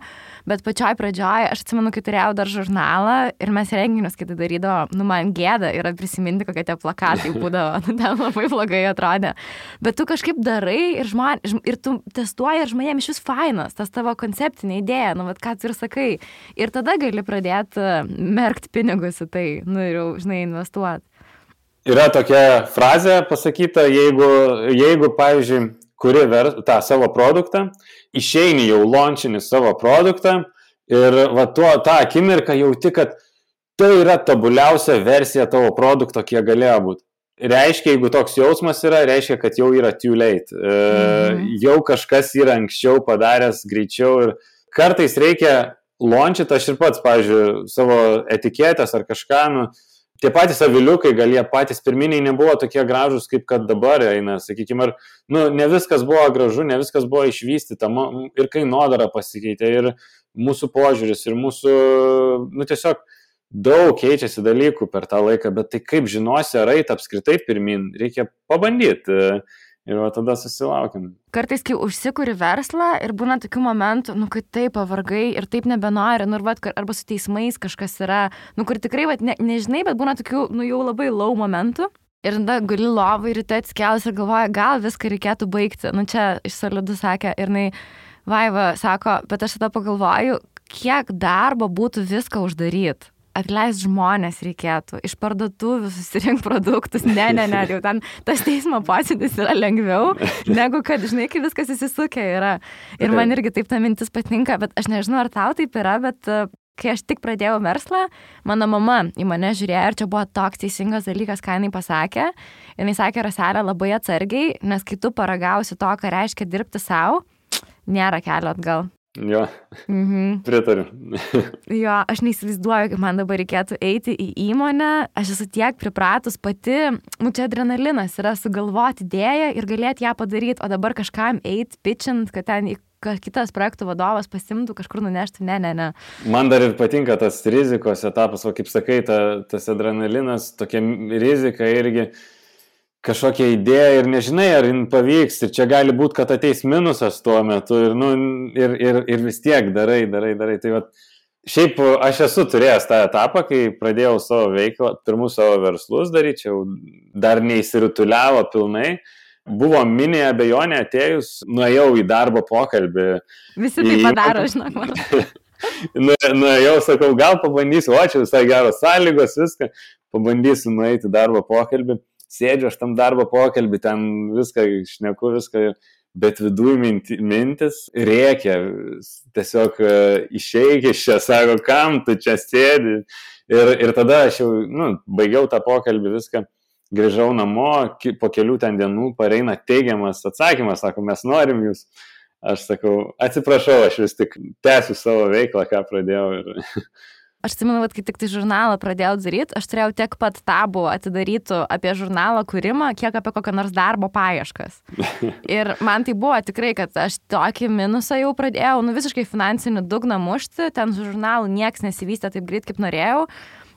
bet pačioj pradžioj, aš atsimenu, kai turėjau dar žurnalą ir mes renginius, kai tai darydavo, man gėda yra prisiminti, kokie tie plakatai būdavo, ten labai blogai atrodė. Bet tu kažkaip darai ir tu testuoji ir žmonėm iš vis fainas, tas tavo konceptinė idėja, ką tu ir sakai. Ir tada gali pradėti merkti pinigus į tai, ir jau, žinai, investuoti. Yra tokia frazė pasakyta, jeigu pavyzdžiui, kuri tą savo produktą, išeini jau launchini savo produktą ir va tą akimirką jauti, kad tai yra tobuliausia versija tavo produkto, kiek galėjo būti. Reiškia, jeigu toks jausmas yra, reiškia, kad jau yra too late. Jau kažkas yra anksčiau padaręs, greičiau ir kartais reikia launchyti, aš ir pats, pavyzdžiui, savo etiketės ar kažką, tie patys aviliukai, gal jie patys pirminiai nebuvo tokie gražus, kaip kad dabar eina, sakykime, ne viskas buvo gražu, ne viskas buvo išvystyta, ir kainodara pasikeitė, ir mūsų požiūris, ir mūsų, tiesiog daug keičiasi dalykų per tą laiką, bet tai kaip žinosi, ar eit apskritai pirmin, reikia pabandyti ir tada susilaukim. Kartais, kai užsikuri verslą ir būna tokių momentų, kai taip pavargai ir taip nebenori, arba su teismais kažkas yra, kur tikrai, nežinai, bet būna tokių, jau labai low momentų. Ir tada guli lovai ryte atsikėlus ir galvoja, gal viską reikėtų baigti. Čia iš Solidų sakė ir Vaiva sako, bet aš tada pagalvoju, kiek darbo būtų viską uždaryti. Atleist žmonės reikėtų, iš parduotuvių susirinkti produktus, ne, jau ten tas teismo posėdis yra lengviau, negu kad, žinai, kai viskas įsisukę yra. Ir man irgi taip ta mintis patinka, bet aš nežinau, ar tau taip yra, bet kai aš tik pradėjau verslą, mano mama į mane žiūrėjo ir čia buvo toks teisingas dalykas, ką jinai pasakė. Jinai sakė, Raselė, labai atsargiai, nes kai tu paragausi to, ką reiškia dirbti savo, nėra kelio atgal. Jo, pritariu. Jo, aš neįsivaizduoju, kaip man dabar reikėtų eiti į įmonę, aš esu tiek pripratus pati, čia adrenalinas yra sugalvoti idėją ir galėti ją padaryti, o dabar kažkam eiti, pitchint, kad ten kitas projektų vadovas pasimtų, kažkur nuneštų, ne. Man dar ir patinka tas rizikos etapas, o kaip sakai, tas adrenalinas, tokia rizika irgi kažkokia idėja ir nežinai, ar jin pavyks ir čia gali būti, kad ateis minusas tuo metu ir vis tiek darai. Tai šiaip aš esu turėjęs tą etapą, kai pradėjau savo veiklą, pirmus savo verslus daryčiau, dar neįsirutuliavo pilnai. Buvo mini abejonė atėjus, nuėjau į darbo pokalbį. Visi tai padaro, žinok, man. Nuėjau, sakau, gal pabandysiu, čia visai geros sąlygos, viską, pabandysiu nueiti į darbo pokalbį. Sėdžiu aš tam darbo pokalbį, ten viską šneku, bet viduj mintis rėkia, tiesiog išeik iš čia, sako, kam tu čia sėdi. Ir tada aš jau baigiau tą pokalbį, viską, grįžau namo, po kelių ten dienų pareina teigiamas atsakymas, sako, mes norim jūs. Aš sakau, atsiprašau, aš vis tik tęsiu savo veiklą, ką pradėjau. Aš atsimenu, kai tik tai žurnalą pradėjau daryti, aš turėjau tiek pat tabų atidarytų apie žurnalo kūrimą, kiek apie kokią nors darbo paieškas. Ir man tai buvo tikrai, kad aš tokį minusą jau pradėjau, visiškai finansinį dugną mušti, ten su žurnalu nieks nesivystė taip greit, kaip norėjau.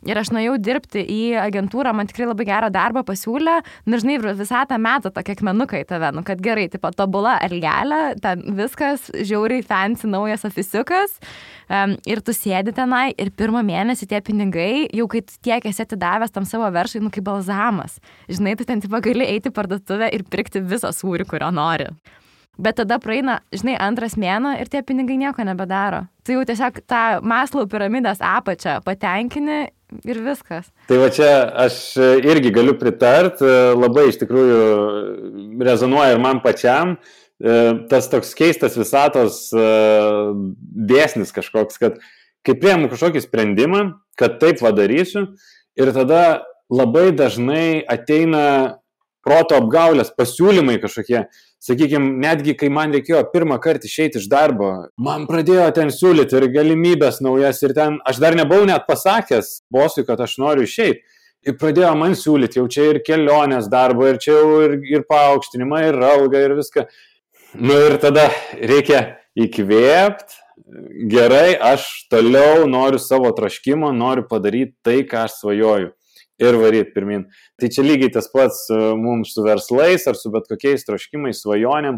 Ir aš nuėjau dirbti į agentūrą, man tikrai labai gerą darbą pasiūlė, žinai, visą tą metą tokie akmenukai tave, kad gerai, tipo tobula elgelė, ten viskas, žiauriai fancy, naujas ofisiukas, ir tu sėdi tenai ir pirmą mėnesį tie pinigai, jau kai tiek esi atidavęs tam savo veršai, kaip balzamas. Žinai, tu ten tipo gali eiti į parduotuvę ir pirkti visą sūrį, kurio nori. Bet tada praeina, žinai, antras mėnuo ir tie pinigai nieko nebedaro. Tu jau tiesiog tą Maslow piramidės apačią patenkini ir viskas. Tai va čia aš irgi galiu pritart, labai iš tikrųjų rezonuoja ir man pačiam. Tas toks keistas visatos dėsnis kažkoks, kad kai priėmu kažkokį sprendimą, kad taip padarysiu ir tada labai dažnai ateina proto apgaulės, pasiūlymai kažkokie. Sakykime, netgi kai man reikėjo pirmą kartą išeiti iš darbo, man pradėjo ten siūlyti ir galimybės naujas ir ten, aš dar nebuvau net pasakęs bosui, kad aš noriu išeiti. Ir pradėjo man siūlyti, jau čia ir kelionės darbo, ir čia jau ir paaukštinimą, ir algą, ir viską. Ir tada reikia įkvėpti, gerai, aš toliau noriu savo troškimo, noriu padaryti tai, ką aš svajoju. Ir varyti pirmin. Tai čia lygiai tas pats mums su verslais ar su bet kokiais troškimais, svajonėm.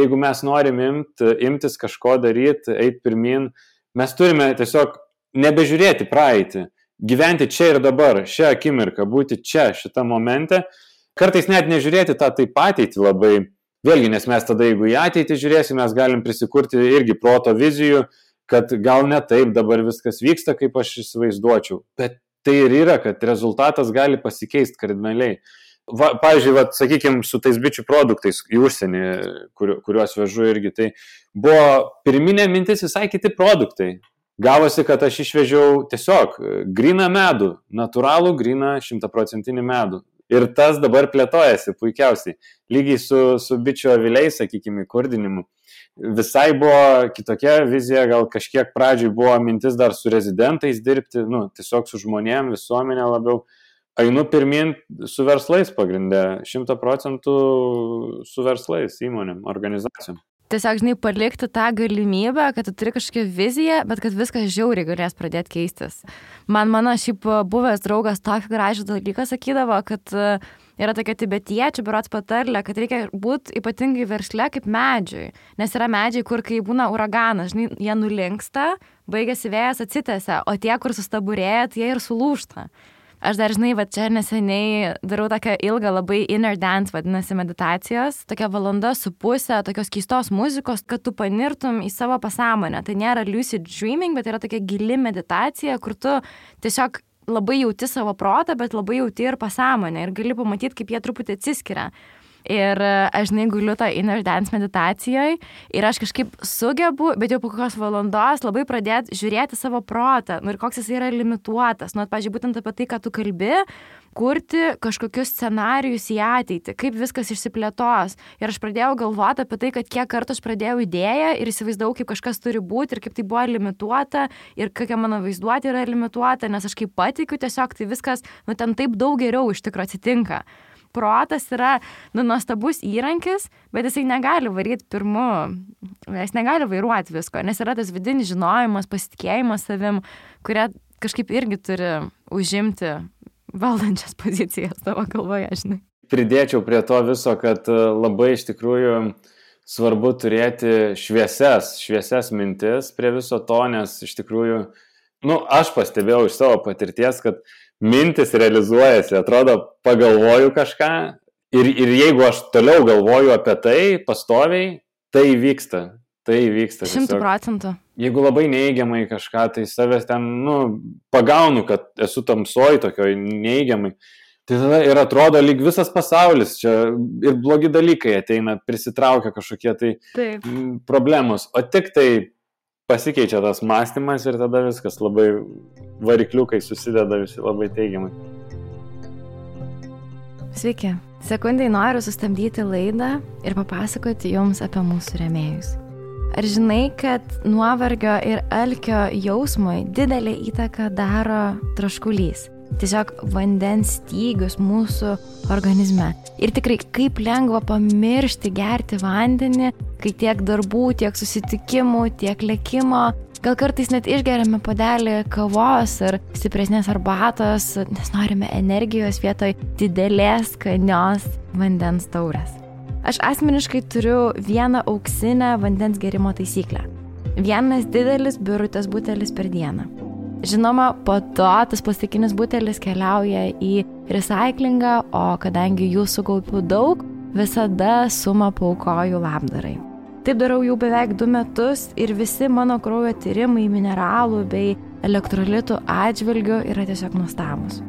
Jeigu mes norim imtis kažko daryti, eiti pirmin, mes turime tiesiog nebežiūrėti praeitį, gyventi čia ir dabar, šią akimirką, būti čia, šitą momente. Kartais net nežiūrėti tą taip ateitį labai. Vėlgi, nes mes tada, jeigu į ateitį žiūrėsim, mes galim prisikurti irgi proto vizijų, kad gal ne taip dabar viskas vyksta, kaip aš įsivaizduočiau. Bet tai ir yra, kad rezultatas gali pasikeisti kardinaliai. Pavyzdžiui, sakykime, su tais bičių produktais į užsienį, kuriuos vežu irgi, tai buvo pirminė mintis visai kiti produktai. Gavosi, kad aš išvežiau tiesiog gryną medų, natūralų gryną 100% medų. Ir tas dabar plėtojasi puikiausiai. Lygiai su bičių aviliais, sakykime, įkurdinimu. Visai buvo kitokia vizija, gal kažkiek pradžiai buvo mintis dar su rezidentais dirbti, tiesiog su žmonėm, visuomenė labiau. Einu pirmin su verslais pagrindė, 100% su verslais, įmonėm, organizacijom. Tiesiog, žinai, palikti tą galimybę, kad tu turi kažkokią viziją, bet kad viskas žiauriai galės pradėti keistis. Mano šiaip buvęs draugas tokį gražų dalyką sakydavo, kad yra tokia tibetiečių berods patarlė, kad reikia būti ypatingai versle kaip medžiui. Nes yra medžiai, kur kai būna uraganas, žinai, jie nulinksta, baigėsi vėjas, atsitęsia, o tie, kur sustaburėja, jie ir sulūžta. Aš dar, žinai, čia neseniai darau tokią ilgą labai inner dance, vadinasi, meditacijos, tokia 1.5 valandos, tokios keistos muzikos, kad tu panirtum į savo pasąmonę. Tai nėra lucid dreaming, bet yra tokia gili meditacija, kur tu tiesiog labai jauti savo protą, bet labai jauti ir pasąmonę ir gali pamatyti, kaip jie truputį atsiskiria. Ir aš, žinai, guliu tą inner dance meditacijoje ir aš kažkaip sugebu, bet jau po kokios valandos labai pradėti žiūrėti savo protą, ir koks jis yra limituotas. Pavyzdžiui, būtent apie tai, ką tu kalbi, kurti kažkokius scenarijus į ateitį, kaip viskas išsiplėtos. Ir aš pradėjau galvoti apie tai, kad kiek kartų aš pradėjau idėją ir įsivaizdavau, kaip kažkas turi būti ir kaip tai buvo limituota ir kokia mano vaizduotė yra limituota, nes aš kaip patikiu, tiesiog tai viskas, ten taip daug geriau iš tikrųjų atsitinka. Protas yra nuostabus įrankis, bet jisai negali varyti pirmu, jis negali vairuoti visko, nes yra tas vidinis žinojimas, pasitikėjimas savim, kurie kažkaip irgi turi užimti valdančias pozicijas tavo galvoje, žinai. Pridėčiau prie to viso, kad labai iš tikrųjų svarbu turėti šviesias mintis prie viso to, nes iš tikrųjų, aš pastebėjau iš savo patirties, kad mintis realizuojasi, atrodo, pagalvoju kažką ir jeigu aš toliau galvoju apie tai pastoviai, tai vyksta. 100%. Jeigu labai neigiamai kažką, tai savęs ten, pagaunu, kad esu tamsoj tokioj neigiamai, tai tada ir atrodo lyg visas pasaulis, čia ir blogi dalykai ateina, prisitraukia kažkokie tai problemos, o tik tai pasikeičia tas mąstymas ir tada viskas labai varikliukai susideda visi labai teigiamai. Sveiki. Sekundai noriu sustabdyti laidą ir papasakoti jums apie mūsų rėmėjus. Ar žinai, kad nuovargio ir alkio jausmui didelę įtaką daro troškulys? Tiesiog vandens stygius mūsų organizme. Ir tikrai kaip lengva pamiršti gerti vandenį, kai tiek darbų, tiek susitikimų, tiek lėkimo. Gal kartais net išgeriame puodelį kavos ar stipresnės arbatos, nes norime energijos vietoj didelės skanios vandens taurės. Aš asmeniškai turiu vieną auksinę vandens gerimo taisyklę. Vienas didelis birutės butelis per dieną. Žinoma, po to tas plastikinis butelis keliauja į recyklingą, o kadangi jų sukaupiu daug, visada sumą paaukoju labdarai. Taip darau jau beveik 2 metus ir visi mano kraujo tyrimai mineralų bei elektrolitų atžvilgių yra tiesiog nuostabūs.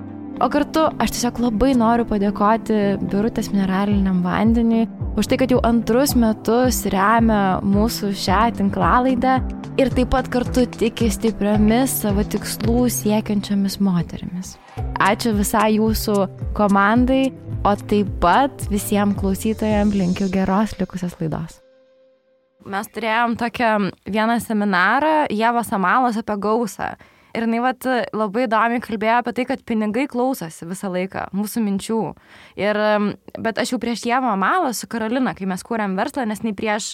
O kartu aš tiesiog labai noriu padėkoti Birutės mineraliniam vandeniui už tai, kad jau 2 metus remia mūsų šią tinklalaidę ir taip pat kartu tiki stipriomis savo tikslų siekiančiomis moterimis. Ačiū visai jūsų komandai, o taip pat visiems klausytojams linkiu geros likusios laidos. Mes turėjom vieną seminarą Ievos Amalos apie gausą. Ir jinai labai įdomiai kalbėjo apie tai, kad pinigai klausosi visą laiką mūsų minčių. Bet aš jau prieš Ievą Amalą su Karolina, kai mes kūrėm verslą, nes nei prieš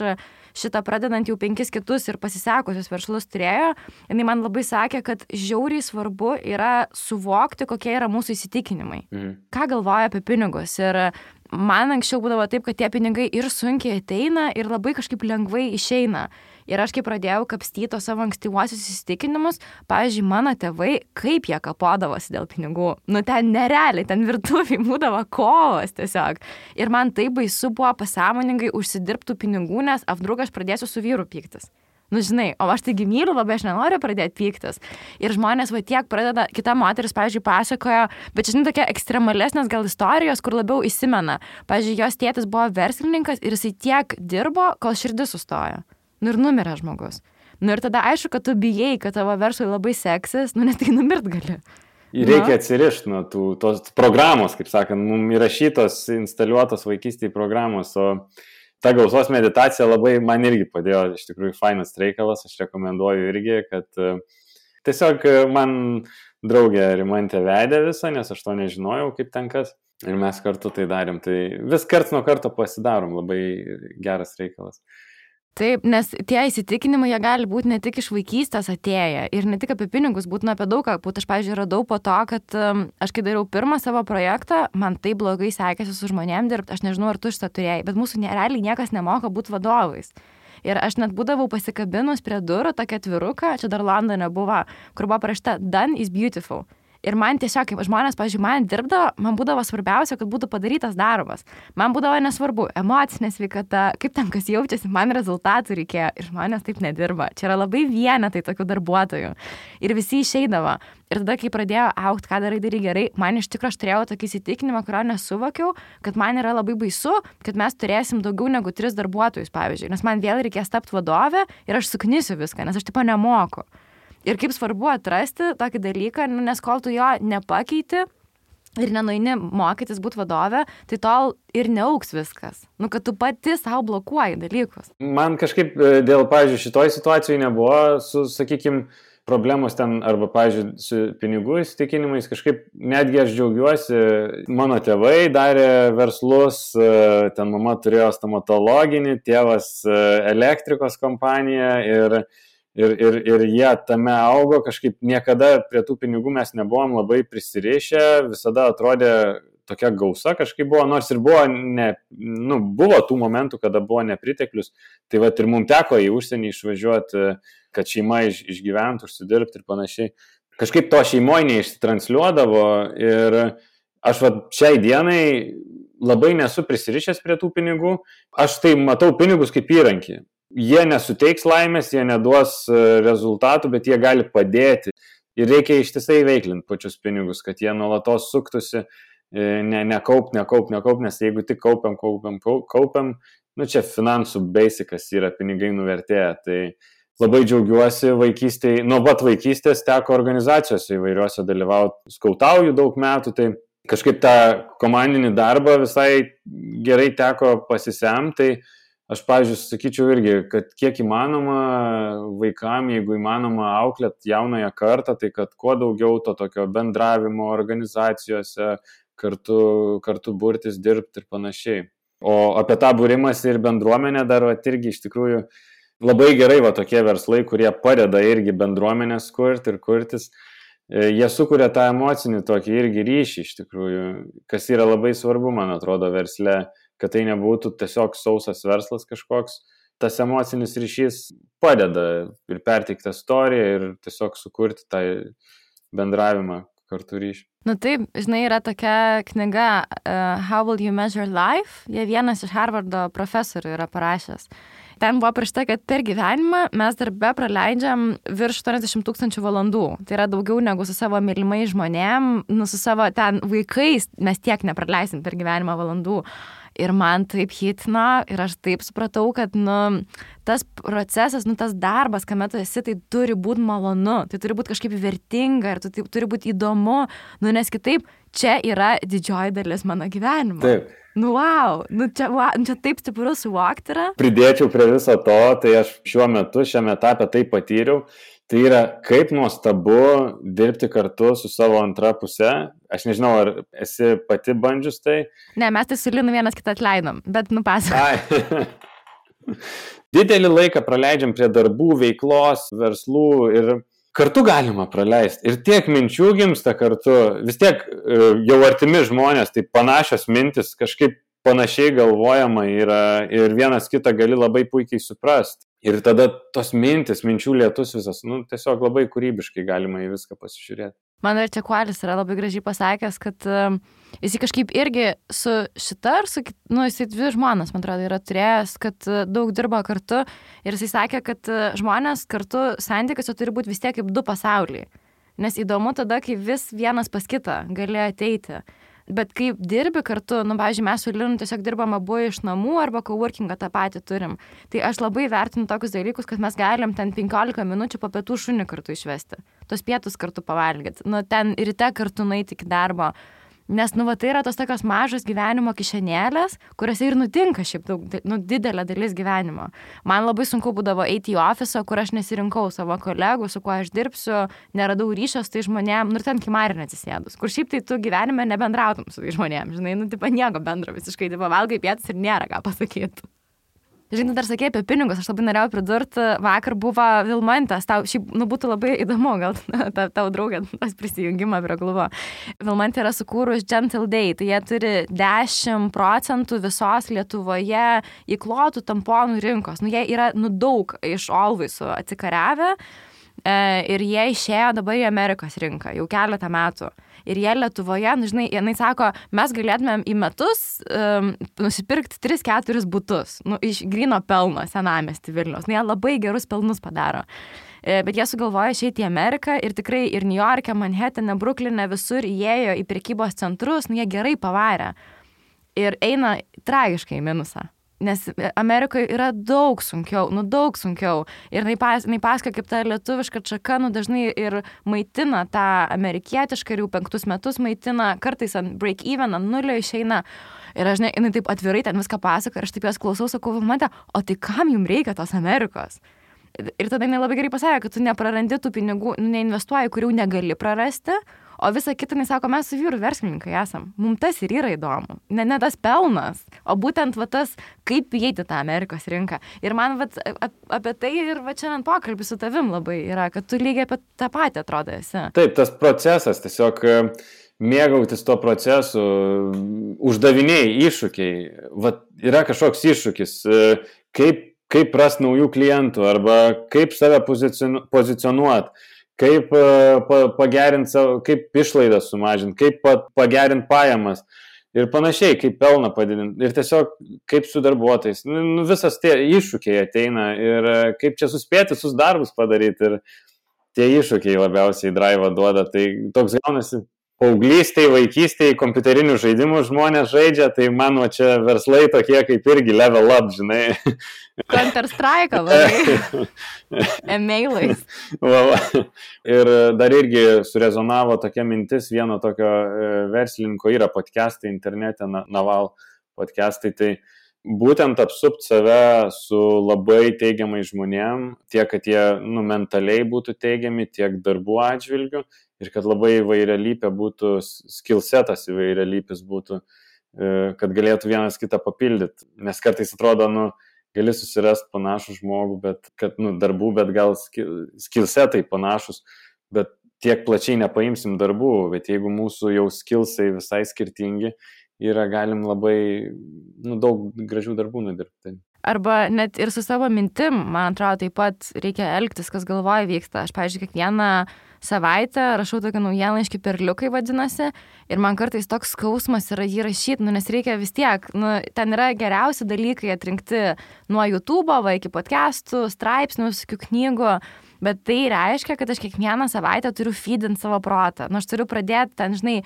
šitą pradedant jau 5 kitus ir pasisekusius verslus turėjo, jinai man labai sakė, kad žiauriai svarbu yra suvokti, kokie yra mūsų įsitikinimai. Ką galvoja apie pinigus. Ir man anksčiau būdavo taip, kad tie pinigai ir sunkiai ateina ir labai kažkaip lengvai išeina. Ir aš kai pradėjau kapstyti savo ankstyvuosius įsitikinimus, pavyzdžiui, mano tėvai, kaip jie kapodavosi dėl pinigų. Ten nerealiai, ten virtuviai būdavo kovos tiesiog. Ir man tai baisu buvo pasąmoningai užsidirbtų pinigų, nes apdrug aš pradėsiu su vyru pyktis. Nu, žinai, o aš taigi myliu labai, aš nenoriu pradėti pyktis. Ir žmonės va tiek pradeda, kita moteris, pavyzdžiui, pasakojo, bet žinai, tokia ekstremalesnės gal istorijos, kur labiau įsimena. Pavyzdžiui, jos tėtis buvo verslininkas ir jisai tiek dirbo, kol širdis sustojo. Nu ir numirė žmogus. Nu ir tada aišku, kad tu bijai, kad tavo verslui labai seksis, nu net tai numirt gali. Ir reikia atsirišti nuo tos programos, kaip sakant, mums įrašytos, instaliuotos vaikystėje programos, o ta gausos meditacija labai man irgi padėjo, iš tikrųjų fainas reikalas, aš rekomenduoju irgi, kad tiesiog man draugė Rimantė vedė visą, nes aš to nežinojau, kaip ten kas, ir mes kartu tai darėm, tai vis karts nuo karto pasidarom, labai geras reikalas. Taip, nes tie įsitikinimai, jie gali būti ne tik iš vaikystės atėję ir ne tik apie pinigus, būtų apie daug ką. Aš, pavyzdžiui, radau po to, kad aš kai dariau pirmą savo projektą, man taip blogai sekėsi su žmonėm dirbti, aš nežinau, ar tu šitą turėjai, bet mūsų realiai niekas nemoka būti vadovais. Ir aš net būdavau pasikabinus prie durų tokia atviruką, čia dar Londone buvo, kur buvo parašyta Done is beautiful. Ir man tiesiog, kaip žmonės, pavyzdžiui, man dirbdavo, man būdavo svarbiausia, kad būtų padarytas darbas. Man būdavo nesvarbu emocinė sveikata, kaip ten kas jaučiasi, man rezultatų reikėjo. Ir žmonės taip nedirba. Čia yra labai vienetai tokių darbuotojų. Ir visi išeidavo. Ir tada, kai pradėjo augti, ką darai gerai, man iš tikrųjų aš turėjau tokį įsitikinimą, kurio nesuvokiau, kad man yra labai baisu, kad mes turėsim daugiau negu 3 darbuotojus, pavyzdžiui. Nes man vėl reikės tapti vadovę ir aš suknisiu viską, nes aš tipo nemoku. Ir kaip svarbu atrasti tokį dalyką, nes kol tu jo nepakeiti ir nenueini mokytis būti vadovė, tai tol ir neauks viskas. Nu, kad tu pati savo blokuoji dalykus. Man kažkaip dėl, pavyzdžiui, šitoj situacijai nebuvo su, sakykime, problemos ten arba, pavyzdžiui, su pinigų įsitikinimais. Kažkaip netgi aš džiaugiuosi, mano tėvai darė verslus, ten mama turėjo stomatologinį, tėvas elektrikos kompaniją ir jie tame augo, kažkaip niekada prie tų pinigų mes nebuvom labai prisirišę, visada atrodė tokia gausa kažkaip buvo, nors ir buvo, buvo tų momentų, kada buvo nepriteklius, tai va ir mums teko į užsienį išvažiuoti, kad šeima išgyventų, užsidirbti ir panašiai. Kažkaip to šeimoje neištransliuodavo ir aš va šiai dienai labai nesu prisirišęs prie tų pinigų, aš tai matau pinigus kaip įrankį. Jie nesuteiks laimės, jie neduos rezultatų, bet jie gali padėti. Ir reikia ištisai veiklinti pačius pinigus, kad jie nuolatos suktųsi, nekaupt, nes jeigu tik kaupiam, nu čia finansų basicas yra pinigai nuvertėję. Tai labai džiaugiuosi vaikystėje, nuo pat vaikystės teko organizacijose įvairiuose dalyvauti, skautauju daug metų, tai kažkaip tą komandinį darbą visai gerai teko pasisemti, tai aš, pavyzdžiui, sakyčiau irgi, kad kiek įmanoma vaikam, jeigu įmanoma auklėt jaunąją kartą, tai kad kuo daugiau to tokio bendravimo organizacijose, kartu burtis, dirbti ir panašiai. O apie tą būrimąsi ir bendruomenę dar irgi iš tikrųjų labai gerai tokie verslai, kurie padeda irgi bendruomenės kurti ir kurtis. Jie sukuria tą emocinį tokį irgi ryšį iš tikrųjų, kas yra labai svarbu, man atrodo, versle, kad tai nebūtų tiesiog sausas verslas kažkoks. Tas emocinis ryšys padeda ir perteikti istoriją ir tiesiog sukurti tą bendravimą kartu ryšį. Nu taip, žinai, yra tokia knyga How Will You Measure Life? Jie vienas iš Harvardo profesorių yra parašęs. Ten buvo parašyta, kad per gyvenimą mes darbe praleidžiam virš 80 000 valandų. Tai yra daugiau negu su savo mylimais žmonėm, su savo ten vaikais mes tiek nepraleisim per gyvenimą valandų. Ir man taip hitino ir aš taip supratau, kad tas procesas, tas darbas, kame tu esi, tai turi būti malonu, tai turi būti kažkaip vertinga ir tai turi būti įdomu, nes kitaip čia yra didžioji dalis mano gyvenimo. Taip. Wow, čia taip stipru suvokti yra. Pridėčiau prie viso to, tai aš šiame etape tai patyriau. Tai yra kaip nuostabu dirbti kartu su savo antra puse. Aš nežinau, ar esi pati bandžius tai? Ne, mes tai su Linu vienas kitą atleidom, bet pasakok. Didelį laiką praleidžiam prie darbų, veiklos, verslų ir kartu galima praleisti. Ir tiek minčių gimsta kartu. Vis tiek jau artimi žmonės, tai panašios mintis, kažkaip panašiai galvojama yra ir vienas kitą gali labai puikiai suprasti. Ir tada tos minčių lietus visas, tiesiog labai kūrybiškai galima į viską pasižiūrėti. Man dar čia Kualis yra labai gražiai pasakęs, kad jis kažkaip irgi su šita ir su, jisai 2 žmonas, man atrodo, yra turėjęs, kad daug dirba kartu ir jisai sakė, kad žmonės kartu santykiuose turi būti vis tiek kaip 2 pasauliai. Nes įdomu tada, kai vis vienas pas kitą gali ateiti. Bet kai dirbi kartu, pavyzdžiui, mes su Linu tiesiog dirbam abu iš namų arba coworkingą tą patį turim. Tai aš labai vertinu tokius dalykus, kad mes galim ten 15 minučių po pietų šunį kartu išvesti. Tos pietus kartu pavalgyti. Ten ryte kartu nueiti iki darbo. Nes, tai yra tos tokios mažos gyvenimo kišenėlės, kuriuose ir nutinka šiaip daug, didelė dalis gyvenimo. Man labai sunku būdavo eiti į ofisą, kur aš nesirinkau savo kolegų, su kuo aš dirbsiu, neradau ryšio su tai žmonėm, ir ten kimarinė atsisėdus, kur šiaip tai tu gyvenime nebendrautum su tai žmonėm, žinai, nieko bendro visiškai, valgai pietus ir nėra ką pasakyti. Žinai, dar sakė apie pinigus, aš labai norėjau pridurti, vakar buvo Vilmantės, tau šiaip, būtų labai įdomu, gal tau draugė tas prisijungimą prie klubo. Vilmantė yra sukūrus Gentle Day, tai jie turi 10% visos Lietuvoje įklotų tamponų rinkos. Jie yra, daug iš Alwaysų atsikariavę ir jie išėjo dabar į Amerikos rinką, jau keletą metų. Ir jie Lietuvoje, žinai, jinai sako, mes galėtumėm į metus nusipirkti 3-4 butus, iš gryno pelno senamiestį Vilniaus. Jie labai gerus pelnus padaro. Bet jie sugalvojo išeiti į Ameriką ir tikrai ir New York'e, Manhattane, Brukline, visur įėjo į prekybos centrus, jie gerai pavarė. Ir eina tragiškai į minusą. Nes Amerikoje yra daug sunkiau. Ir jinai pasakoja, kaip ta lietuviška čaka, dažnai ir maitina tą amerikietišką ir jau 5 metus maitina, kartais ant break-even, ant nulio išeina. Ir aš, jinai taip atvirai ten viską pasakoja, ir aš taip jos klausau, sakau, Vilmante, o tai kam jums reikia tos Amerikos? Ir tada jinai labai gerai pasakė, kad tu neprarandi tų pinigų, neinvestuoji, kurių negali prarasti. O visą kitą, jis sako, mes su vyru verslininkai esam. Mums tas ir yra įdomu. Ne tas pelnas, o būtent tas, kaip įeiti tą Amerikos rinką. Ir man apie tai ir šiandien pokalbis su tavim labai yra, kad tu lygiai apie tą patį atrodo esi. Taip, tas procesas, tiesiog mėgautis to procesu, uždaviniai, iššūkiai. Yra kažkoks iššūkis, kaip rast naujų klientų arba kaip save pozicionuoti. Kaip pagerinti savo, kaip išlaidas sumažinti, kaip pagerinti pajamas ir panašiai, kaip pelną padidinti ir tiesiog kaip su darbuotojais. Visas tie iššūkiai ateina ir kaip čia suspėti visus darbus padaryti ir tie iššūkiai labiausiai drive duoda. Tai toks gaunasi paauglystėje, vaikystėje, kompiuterinių žaidimų žmonės žaidžia, tai mano čia verslai tokie kaip irgi level up, žinai. Counter-Strike, labai. E-mailais. Ir dar irgi surezonavo tokia mintis, vieno tokio verslininko yra podcastai internete, Naval podcastai, tai būtent apsupt save su labai teigiamai žmonėm, tiek, kad jie mentaliai būtų teigiami, tiek darbų atžvilgių ir kad labai įvairialypė būtų, skillsetas įvairialypis būtų, kad galėtų vienas kitą papildyti. Nes kartais atrodo, gali susirasti panašų žmogų, bet kad, darbų, bet gal skillsetai panašus, bet tiek plačiai nepaimsim darbų, bet jeigu mūsų jau skillsai visai skirtingi, galim labai daug gražių darbų nudirbti. Arba net ir su savo mintim, man atrodo, taip pat reikia elgtis, kas galvoje vyksta. Aš, pavyzdžiui, kiekvieną savaitę rašau tokį naujienlaiškį perliukai vadinasi ir man kartais toks skausmas yra jį rašyti, nes reikia vis tiek, ten yra geriausi dalykai atrinkti nuo YouTube'o iki podcastų, straipsnių, visokių knygų. Bet tai reiškia, kad aš kiekvieną savaitę turiu feedinti savo protą. Aš turiu pradėti ten, žinai,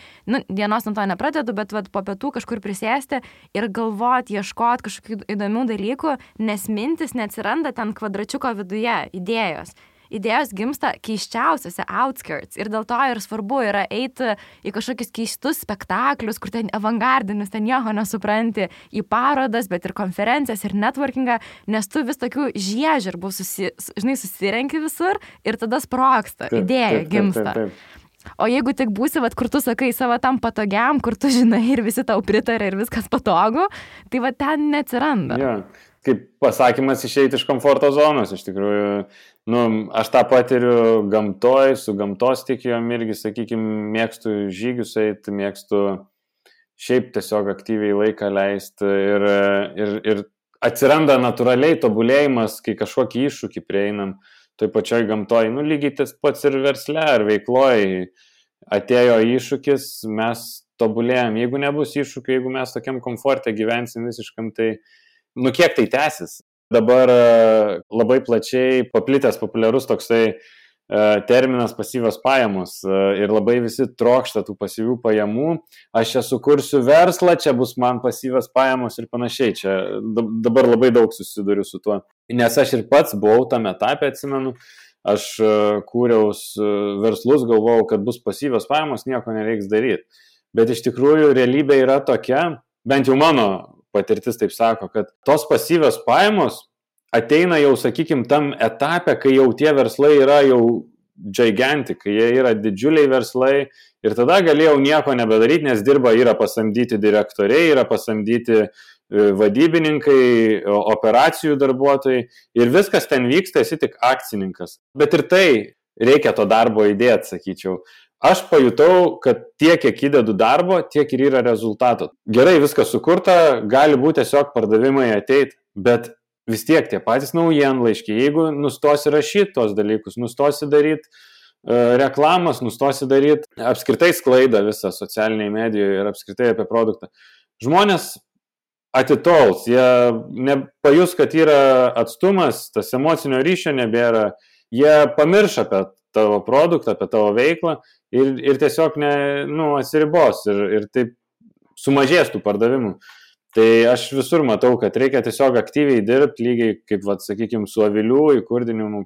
dienos nuo to nepradedu, bet po pietų kažkur prisėsti ir galvoti, ieškoti kažkokių įdomių dalykų, nes mintis neatsiranda ten kvadračiuko viduje, idėjos. Idėjos gimsta keiščiausiose outskirts ir dėl to ir svarbu yra eiti į kažkokius keistus spektaklius, kur ten avangardinis, ten nieko nesupranti, į parodas, bet ir konferencijas ir networkingą, nes tu vis tokių žiežirbų susirenki visur ir tada sprogsta, idėja gimsta. O jeigu tik būsi, kur tu sakai savo tam patogiam, kur tu žinai ir visi tau pritarė ir viskas patogu, tai ten neatsiranda. Ja. Kaip pasakymas išeiti iš komforto zonos, iš tikrųjų, aš tą patiriu gamtoj, su gamtos tikėjom irgi, sakykime, mėgstu žygius eiti, mėgstu šiaip tiesiog aktyviai laiką leisti ir atsiranda natūraliai tobulėjimas, kai kažkokį iššūkį prieinam, toj pačioj gamtoj, lygiai tas pats ir versle ar veikloj, atėjo iššūkis, mes tobulėjom. Jeigu nebus iššūkių, jeigu mes tokiam komforte gyvensim visiškam, tai kiek tai tęsis? Dabar labai plačiai paplitęs populiarus toksai terminas pasyvios pajamos ir labai visi trokšta tų pasyvių pajamų. Aš čia sukursiu verslą, čia bus man pasyvios pajamos ir panašiai. Čia dabar labai daug susiduriu su tuo. Nes aš ir pats buvau tame etape, atsimenu, aš kūriau verslus, galvojau, kad bus pasyvios pajamos, nieko nereiks daryti. Bet iš tikrųjų realybė yra tokia, bent jau mano patirtis taip sako, kad tos pasyvios pajamos ateina jau, sakykime, tam etape, kai jau tie verslai yra jau gigantic, kai jie yra didžiuliai verslai ir tada galėjau nieko nebedaryti, nes yra pasamdyti direktoriai, yra pasamdyti vadybininkai, operacijų darbuotojai ir viskas ten vyksta, esi tik akcininkas. Bet ir tai reikia to darbo įdėti, sakyčiau. Aš pajutau, kad tiek, kiek įdedu darbo, tiek ir yra rezultato. Gerai, viskas sukurta, gali būti tiesiog pardavimai ateiti, bet vis tiek tie patys naujienlaiškiai, jeigu nustosi rašyti tos dalykus, nustosi daryti reklamas, nustosi daryti apskritai sklaidą visą socialiniai medijoje ir apskritai apie produktą, žmonės atitols, jie nepajus, kad yra atstumas, tas emocinio ryšio nebėra, jie pamirš apie tavo produktą, apie tavo veiklą ir tiesiog atsiribos ir taip sumažės tų pardavimų. Tai aš visur matau, kad reikia tiesiog aktyviai dirbti, lygiai kaip, sakykime, su avilių įkurdinimu,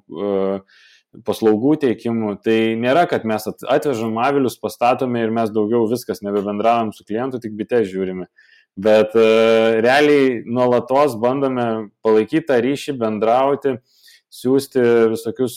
paslaugų teikimu. Tai nėra, kad mes atvežam avilius, pastatome ir mes daugiau viskas nebebendravom su klientu, tik bite žiūrime. Bet realiai nuolatos bandome palaikyti tą ryšį, bendrauti, siūsti visokius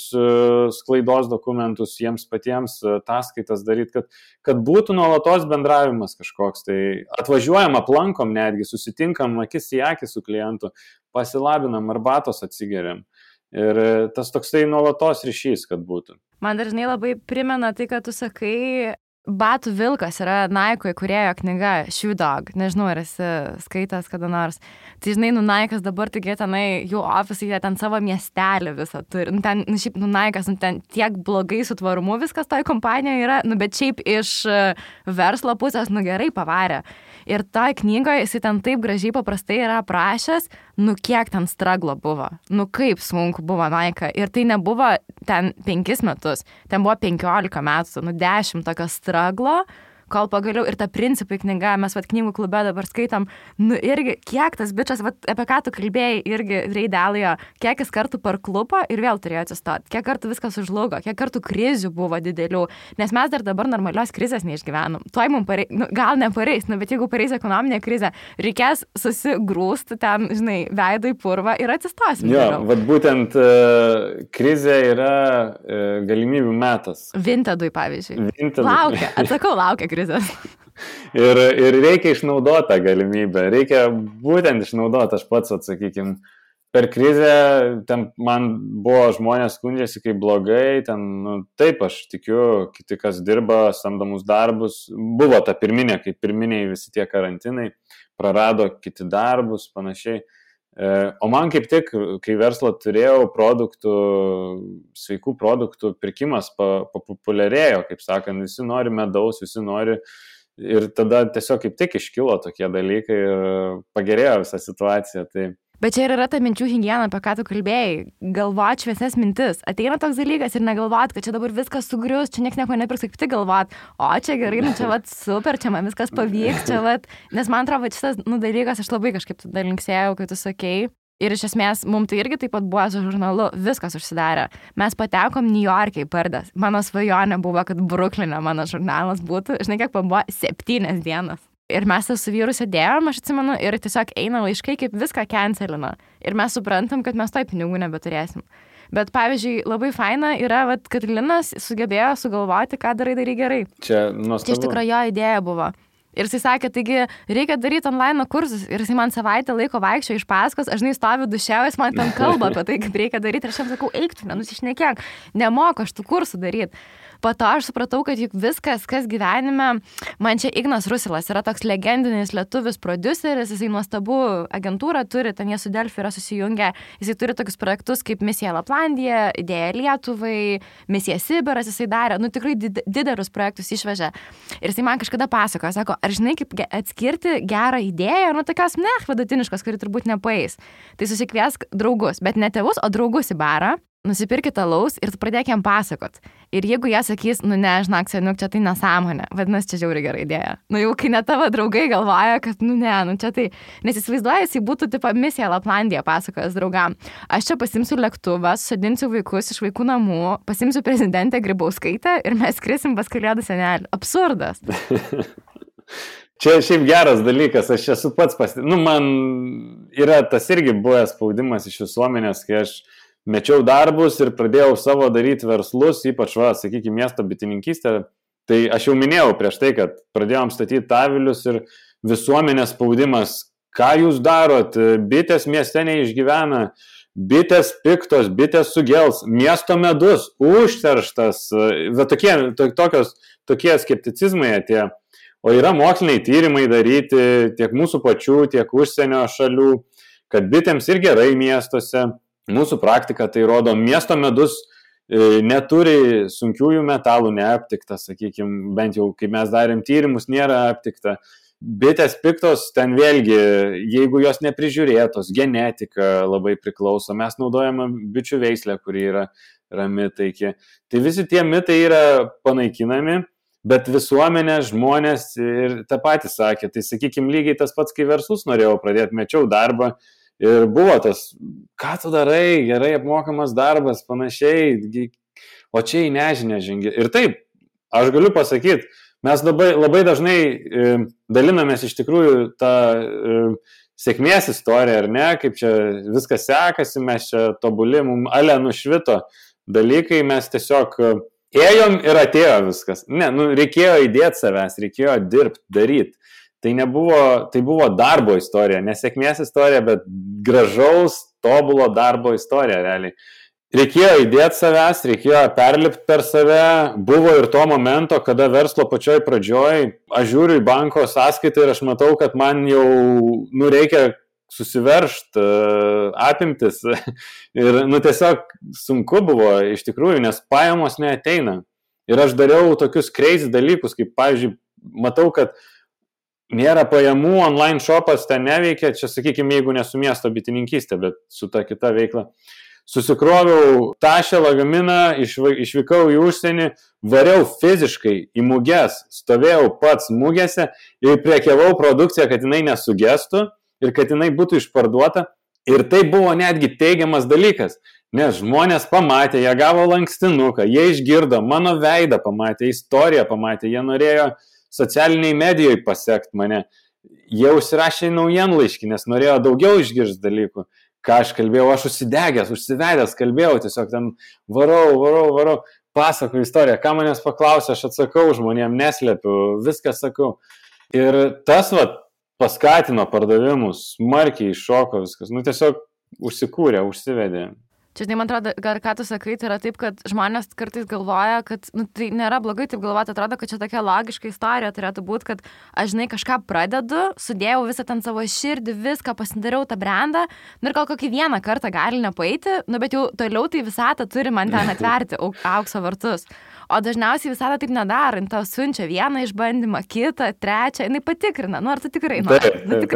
sklaidos dokumentus jiems patiems, ataskaitas daryti, kad būtų nuolatos bendravimas kažkoks. Tai atvažiuojam, aplankom netgi, susitinkam akis į akį su klientu, pasilabinam, arbatos atsigeriam. Ir tas toksai nuolatos ryšys, kad būtų. Man dažnai labai primena tai, kad tu sakai, Batų vilkas yra Nike įkūrėjo knyga Shoe Dog. Nežinau, ar esi skaitęs kada nors. Tai žinai, Nike'as dabar tokie tenai, jų ofisai, jie ten savo miestelį visą turi. Ten, šiaip, Nike'as, ten tiek blogai su tvarumu viskas toj kompanijoje yra, bet šiaip iš verslo pusės, gerai pavarė. Ir toj knygoje jisai ten taip gražiai paprastai yra aprašęs, kiek ten straglo buvo. Kaip sunku buvo Nike. Ir tai nebuvo ten 5 metus, ten buvo 15 metų, 10 tokio straglo, kol pagaliau ir ta principai knyga, mes knygų klube dabar skaitom, irgi kiek tas bičas, apie ką tu kalbėjai, irgi Reidelijo, kiek jis kartų parklupo ir vėl turėjo atsistoti, kiek kartų viskas užlugo, kiek kartų krizių buvo didelių, nes mes dar dabar normalios krizės neišgyvenom. Tuoj mums gal nepareis, bet jeigu pareis ekonominė krizė, reikės susigrūsti ten, žinai, veidai purvą ir atsistosim. Jo, būtent krizė yra galimybių metas. Vintedui, pavyzdžiui. Laukia krizės. Ir reikia išnaudoti tą galimybę, reikia būtent išnaudoti, aš pats atsakykim. Per krizę ten man buvo žmonės skundžiasi kaip blogai, ten, taip aš tikiu, kiti kas dirba, samdomus darbus, buvo ta pirminė, kaip pirminiai visi tie karantinai, prarado kiti darbus, panašiai. O man kaip tik, kai verslą turėjau, sveikų produktų pirkimas populiarėjo, kaip sakant, visi nori medaus, visi nori ir tada tiesiog kaip tik iškilo tokie dalykai ir pagerėjo visą situaciją. Tai... Bet čia yra ta minčių higiena, apie ką tu kalbėjai, galvot šviesias mintis. Ateina toks dalykas ir negalvot, kad čia dabar viskas sugrius, čia nieks nieko nepirks, kaip tik galvot, o čia gerai, čia super, čia man viskas pavyks, čia nes man atrodo, šitas dalykas aš labai kažkaip tada linksėjau, kai tu sakei. Ir iš esmės, mums tai irgi taip pat buvo su žurnalu, viskas užsidarė. Mes patekom New York'e į pardas. Mano svajonė buvo, kad Brukline mano žurnalas būtų, žinai, kiek buvo 7 dienas. Ir mes su vyru sėdėjom, aš atsimenu, ir tiesiog eina laiškai, kaip viską cancelina. Ir mes suprantam, kad mes toj pinigų nebeturėsim. Bet, pavyzdžiui, labai faina yra, kad Linas sugebėjo sugalvoti, ką darai gerai. Čia nuostabu. Čia iš tikrųjų jo idėja buvo. Ir jisai sakė, taigi reikia daryti online kursus. Ir jisai man savaitę laiko vaikščio iš paskos, aš žinai stoviu duše, jis man ten kalba apie tai, kaip reikia daryti. Ir aš jam sakau, eik tu, nenusišnekėk, nemoku aš tų kursų daryti. po to aš supratau, kad juk viskas, kas gyvenime, man čia Ignas Rusilas yra toks legendinis lietuvis prodiuseris, jisai nuostabų agentūrą turi, ten jie su Delfi yra susijungę, jisai turi tokius projektus kaip Misija Laplandija, Idėja Lietuvai, Misija Sibiras, jisai darė, tikrai didelius projektus išvežė. Ir jisai man kažkada pasakojo, sako, ar žinai, kaip atskirti gerą idėją, tokios vidutiniškos, kuri turbūt nepaeis. Tai susikviesk draugus, bet ne tėvus, o draugus į barą. Nusipirkit alaus ir tu pradėk jam pasakot. Ir jeigu jie sakys, ne, žinok, seniuk, čia tai nesąmonė, vadinasi, čia žiauriai gera idėja. Jau kai net tavo draugai galvoja, kad, čia tai, nes įsivaizduoja, jis būtų tipo Misija Laplandija pasakojęs draugam. Aš čia pasimsiu lėktuvą, susadinsiu vaikus iš vaikų namų, pasimsiu prezidentę Grybauskaitę ir mes skrisim pas Kalėdų senelį. Absurdas. Čia šiaip geras dalykas, aš esu pats man yra tas irgi buvęs spaudimas iš visuomenės, kai aš mečiau darbus ir pradėjau savo daryti verslus, ypač, sakykime, miesto bitininkystę. Tai aš jau minėjau prieš tai, kad pradėjom statyti avilius ir visuomenės spaudimas, ką jūs darot, bitės mieste neišgyvena, bitės piktos, bitės sugels, miesto medus, užterštas, tokie skepticizmai atėjo. O yra moksliniai tyrimai daryti tiek mūsų pačių, tiek užsienio šalių, kad bitėms ir gerai miestuose. Mūsų praktika tai rodo, miesto medus neturi sunkiųjų metalų neaptikta, sakykime, bent jau kai mes darėm tyrimus, nėra aptikta. Bitės piktos, ten vėlgi, jeigu jos neprižiūrėtos, genetika labai priklauso, mes naudojame bičių veislę, kuri yra rami, taiki. Tai visi tie mitai yra panaikinami, bet visuomenė, žmonės ir tą patį sakė. Tai sakykime, lygiai tas pats, kai verslus norėjau pradėti, mečiau darbą. Ir buvo tas, ką tu darai, gerai apmokamas darbas, panašiai, o čia į nežinę žengi. Ir taip, aš galiu pasakyti, mes labai dažnai dalinamės iš tikrųjų tą sėkmės istoriją, ar ne, kaip čia viskas sekasi, mes čia tobuli, mums ale nušvito dalykai, mes tiesiog ėjom ir atėjo viskas. Ne, reikėjo įdėti savęs, reikėjo dirbti, daryti. Tai buvo darbo istorija, nesėkmės istorija, bet gražaus, tobulo darbo istorija realiai. Reikėjo įdėti savęs, reikėjo perlipti per save, buvo ir to momento, kada verslo pačioj pradžioj, aš žiūriu į banko sąskaitą ir aš matau, kad man jau reikia susiveržti apimtis ir tiesiog sunku buvo iš tikrųjų, nes pajamos neateina. Ir aš dariau tokius crazy dalykus, kaip pavyzdžiui, matau, kad nėra pajamų, online shopas ten neveikia, čia sakykime, jeigu ne su miesto bitininkystė, bet su ta kita veikla. Susikroviau tašę lagaminą, išvykau į užsienį, variau fiziškai į muges, stovėjau pats mugėse ir prekiavau produkciją, kad jinai nesugestų ir kad jinai būtų išparduota. Ir tai buvo netgi teigiamas dalykas, nes žmonės pamatė, jie gavo lankstinuką, jie išgirdo, mano veidą pamatė, istoriją pamatė, jie norėjo socialiniai medijoje pasiekti mane. Jie užsirašė į naujienlaiškį, nes norėjo daugiau išgirsti dalykų. Ką aš kalbėjau, aš užsivedęs kalbėjau, tiesiog ten varau, pasakoju istoriją. Ką manęs paklausė, aš atsakau žmonėm, neslepiu, viską sakau. Ir tas paskatino pardavimus, smarkiai iššoko viskas. Tiesiog užsikūrė, užsivedė. Čia, man atrodo, ką tu sakai, tai yra taip, kad žmonės kartais galvoja, kad tai nėra blogai taip galvoti, atrodo, kad čia tokia logiška istorija turėtų būti, kad aš, kažką pradedu, sudėjau visą ten savo širdį, viską, pasidariau tą brandą, ir gal kokį vieną kartą gali nepaeiti, bet jau toliau tai visata turi man ten atverti aukso vartus. O dažniausiai visata taip nedaro, jin tau siunčia vieną išbandymą, kitą, trečią, jinai patikrina, ar tu tikrai nori,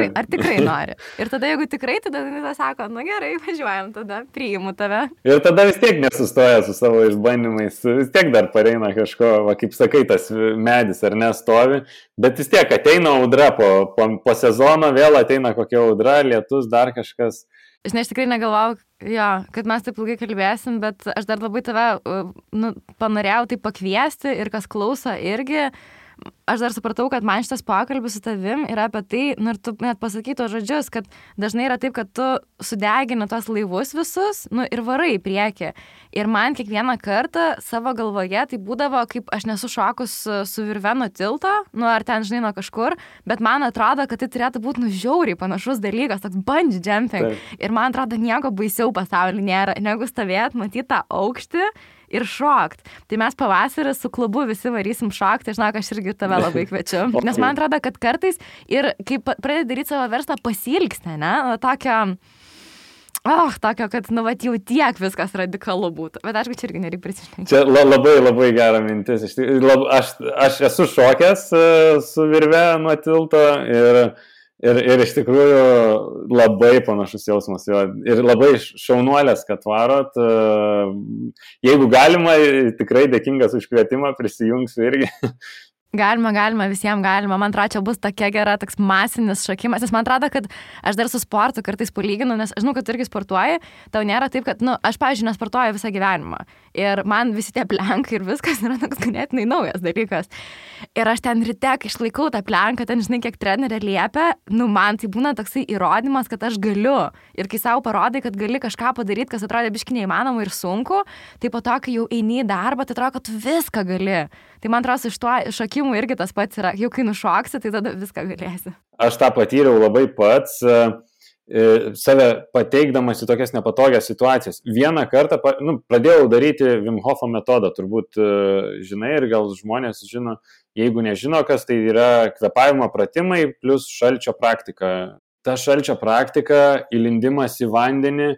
ar tikrai nori. Ir tada, jeigu tikrai, tada jinai sako, gerai, važiuojam, tada priimu tave. Ir tada vis tiek nesustoja su savo išbandymais, vis tiek dar pareina kažko, kaip sakai, tas medis ar nestovi, bet vis tiek ateina audra po sezono, vėl ateina kokia audra, lietus, dar kažkas. Žinai, aš tikrai negalvau, kad mes taip ilgai kalbėsim, bet aš dar labai tave panorėjau tai pakviesti ir kas klauso irgi. Aš dar supratau, kad man šitas pokalbis su tavim yra apie tai, ir tu net pasakai tos žodžius, kad dažnai yra taip, kad tu sudegini tos laivus visus, ir varai į priekį. Ir man kiekvieną kartą savo galvoje tai būdavo, kaip aš nesu šokus su virve nuo tilto, ar ten, žinai, nuo kažkur, bet man atrodo, kad tai turėtų būti žiauriai panašus dalykas, toks bungee jumping. Ir man atrodo, nieko baisiau pasaulyje nėra, negu stovėt, matyti tą aukštį ir šokt. Tai mes pavasarį su klubu visi varysim šokti, žinok, aš irgi tave labai kviečiu. Nes man atrodo, kad kartais ir kai pradedi daryti savo verslą pasilgsti, ne? Tokio, kad, jau tiek viskas radikalu būtų. Bet aišku, čia irgi nereikia prisišnekėti. Čia labai gera mintis. Aš esu šokęs su virve nuo tilto ir iš tikrųjų labai panašus jausmas. Ir labai šaunuolės, kad varot. Jeigu galima, tikrai dėkingas už kvietimą, prisijungsiu irgi. Galima, visiems galima. Man atrodo, čia bus tokia gera, toks masinis šokimas. Nes man atrodo, kad aš dar su sportu kartais palyginu, nes aš žinau, kad tu irgi sportuoji, tau nėra taip, kad, aš, pavyzdžiui, nesportuoju visą gyvenimą. Ir man visi tie plenkai ir viskas yra toks ganėtinai naujas dalykas. Ir aš ten ryte, kai išlaikau tą plenką, ten, žinai, kiek trenerė liepia, man tai būna toksai įrodymas, kad aš galiu. Ir kai savo parodai, kad gali kažką padaryti, kas atrodė biškai neįmanoma ir sunku, tai po to, kai jau eini į darbą, tai atrodo, kad tu viską gali. Tai man atrodo, iš to šokimų irgi tas pats yra. Jau kai nušoksi, tai tada viską galėsi. Aš tą patyriau labai pats, save pateikdamas į tokias nepatogias situacijas. Vieną kartą pradėjau daryti Wim Hofo metodą, turbūt žinai ir gal žmonės žino, jeigu nežino, kas tai yra kvėpavimo pratimai plus šalčio praktika. Ta šalčio praktika, įlindimas į vandenį,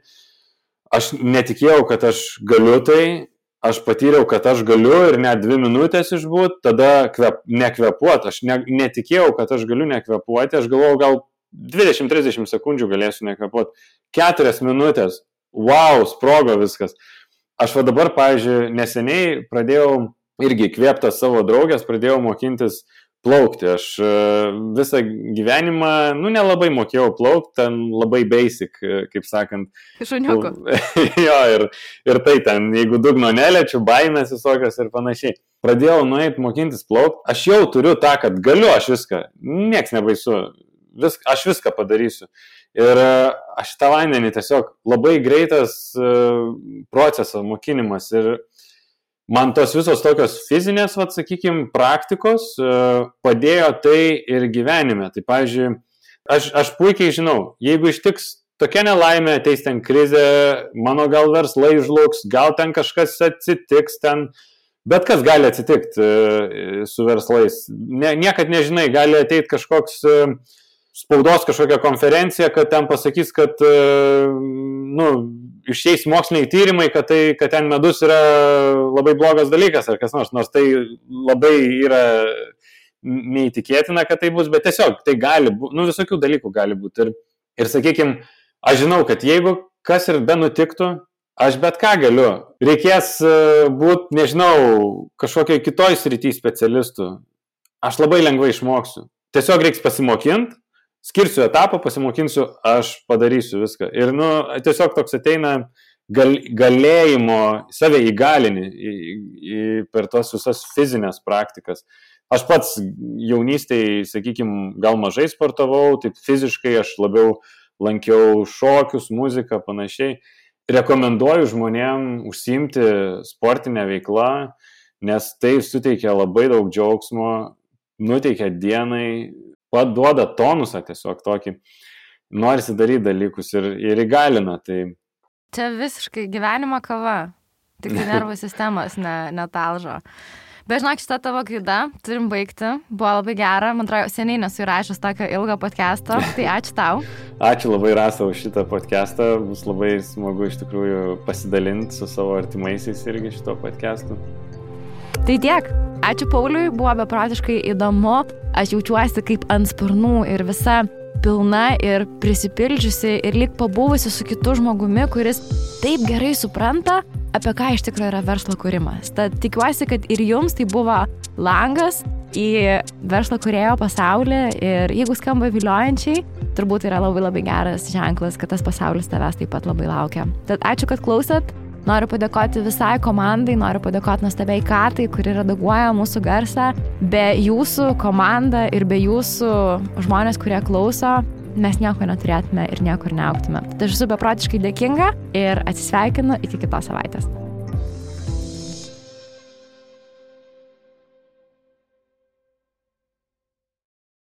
aš netikėjau, kad aš galiu tai. Aš patyriau, kad aš galiu ir net 2 minutės išbūt, tada nekvėpuoti. Aš netikėjau, kad aš galiu nekvėpuoti. Aš galvojau, gal 20-30 sekundžių galėsiu nekvėpuoti. 4 minutės. Wow, sprogo viskas. Aš dabar, pavyzdžiui, neseniai pradėjau irgi įkvėptas savo draugės, pradėjau mokintis plaukti. Aš visą gyvenimą, nelabai mokėjau plaukti, ten labai basic, kaip sakant. Šuniuku. Jo, ir tai ten, jeigu dugno neliečiu, baimės visokios ir panašiai. Pradėjau nueiti mokintis plaukti. Aš jau turiu tą, kad galiu aš viską. Nieks nebaisu. Aš viską padarysiu. Ir aš tą vandenį tiesiog labai greitas procesas, mokinimas ir man tos visos tokios fizinės, sakykime, praktikos padėjo tai ir gyvenime. Tai, pavyzdžiui, aš puikiai žinau, jeigu ištiks tokia nelaimė, ateis ten krizė, mano gal verslai žlugs, gal ten kažkas atsitiks ten, bet kas gali atsitikti su verslais. Niekad nežinai, gali ateiti kažkoks spaudos kažkokia konferencija, kad ten pasakys, kad išeis moksliniai tyrimai, kad ten medus yra labai blogas dalykas ar kas nors tai labai yra neįtikėtina, kad tai bus, bet tiesiog tai gali būti, visokių dalykų gali būti. Ir sakykime, aš žinau, kad jeigu kas ir be nutiktų, aš bet ką galiu. Reikės būti, nežinau, kažkokiai kitoj srity specialistų. Aš labai lengvai išmoksiu. Tiesiog reiks pasimokinti. Skirsiu etapą, pasimokinsiu, aš padarysiu viską. Ir tiesiog toks ateina galėjimo, save įgalini per tos visas fizinės praktikas. Aš pats jaunystėje, sakykime, gal mažai sportavau, taip fiziškai aš labiau lankiau šokius, muziką, panašiai. Rekomenduoju žmonėm užsiimti sportinę veiklą, nes tai suteikia labai daug džiaugsmo, nuteikia dienai, duoda tonusą tiesiog tokį, norisi daryti dalykus ir įgalina. Tai... Čia visiškai gyvenimo kava, tik nervų sistemos netalžo. Bet žinok, šitą tavo gaida, turim baigti, buvo labai gera, man atrodo, seniai nesu įrašęs tokio ilgo podcast'o, tai ačiū tau. Ačiū labai, Rasa, už šitą podcast'ą, bus labai smagu iš tikrųjų pasidalinti su savo artimaisiais irgi šito podcast'u. Tai tiek. Ačiū Pauliui, buvo beprotiškai įdomu. Aš jaučiuosi kaip ant sparnų ir visa pilna ir prisipildžiusi ir lyg pabuvusi su kitu žmogumi, kuris taip gerai supranta, apie ką iš tikrųjų yra verslo kūrimas. Tad tikiuosi, kad ir jums tai buvo langas į verslo kūrėjo pasaulį ir jeigu skamba viliojančiai, turbūt yra labai labai geras ženklas, kad tas pasaulis tavęs taip pat labai laukia. Tad ačiū, kad klausėt. Noriu padėkoti visai komandai, noriu padėkoti nuostabiai Katai, kuri redaguoja mūsų garsą. Be jūsų komanda ir be jūsų žmonės, kurie klauso, mes nieko neturėtume ir niekur neaugtume. Tai aš esu beprotiškai dėkinga ir atsisveikinu iki kitos savaitės.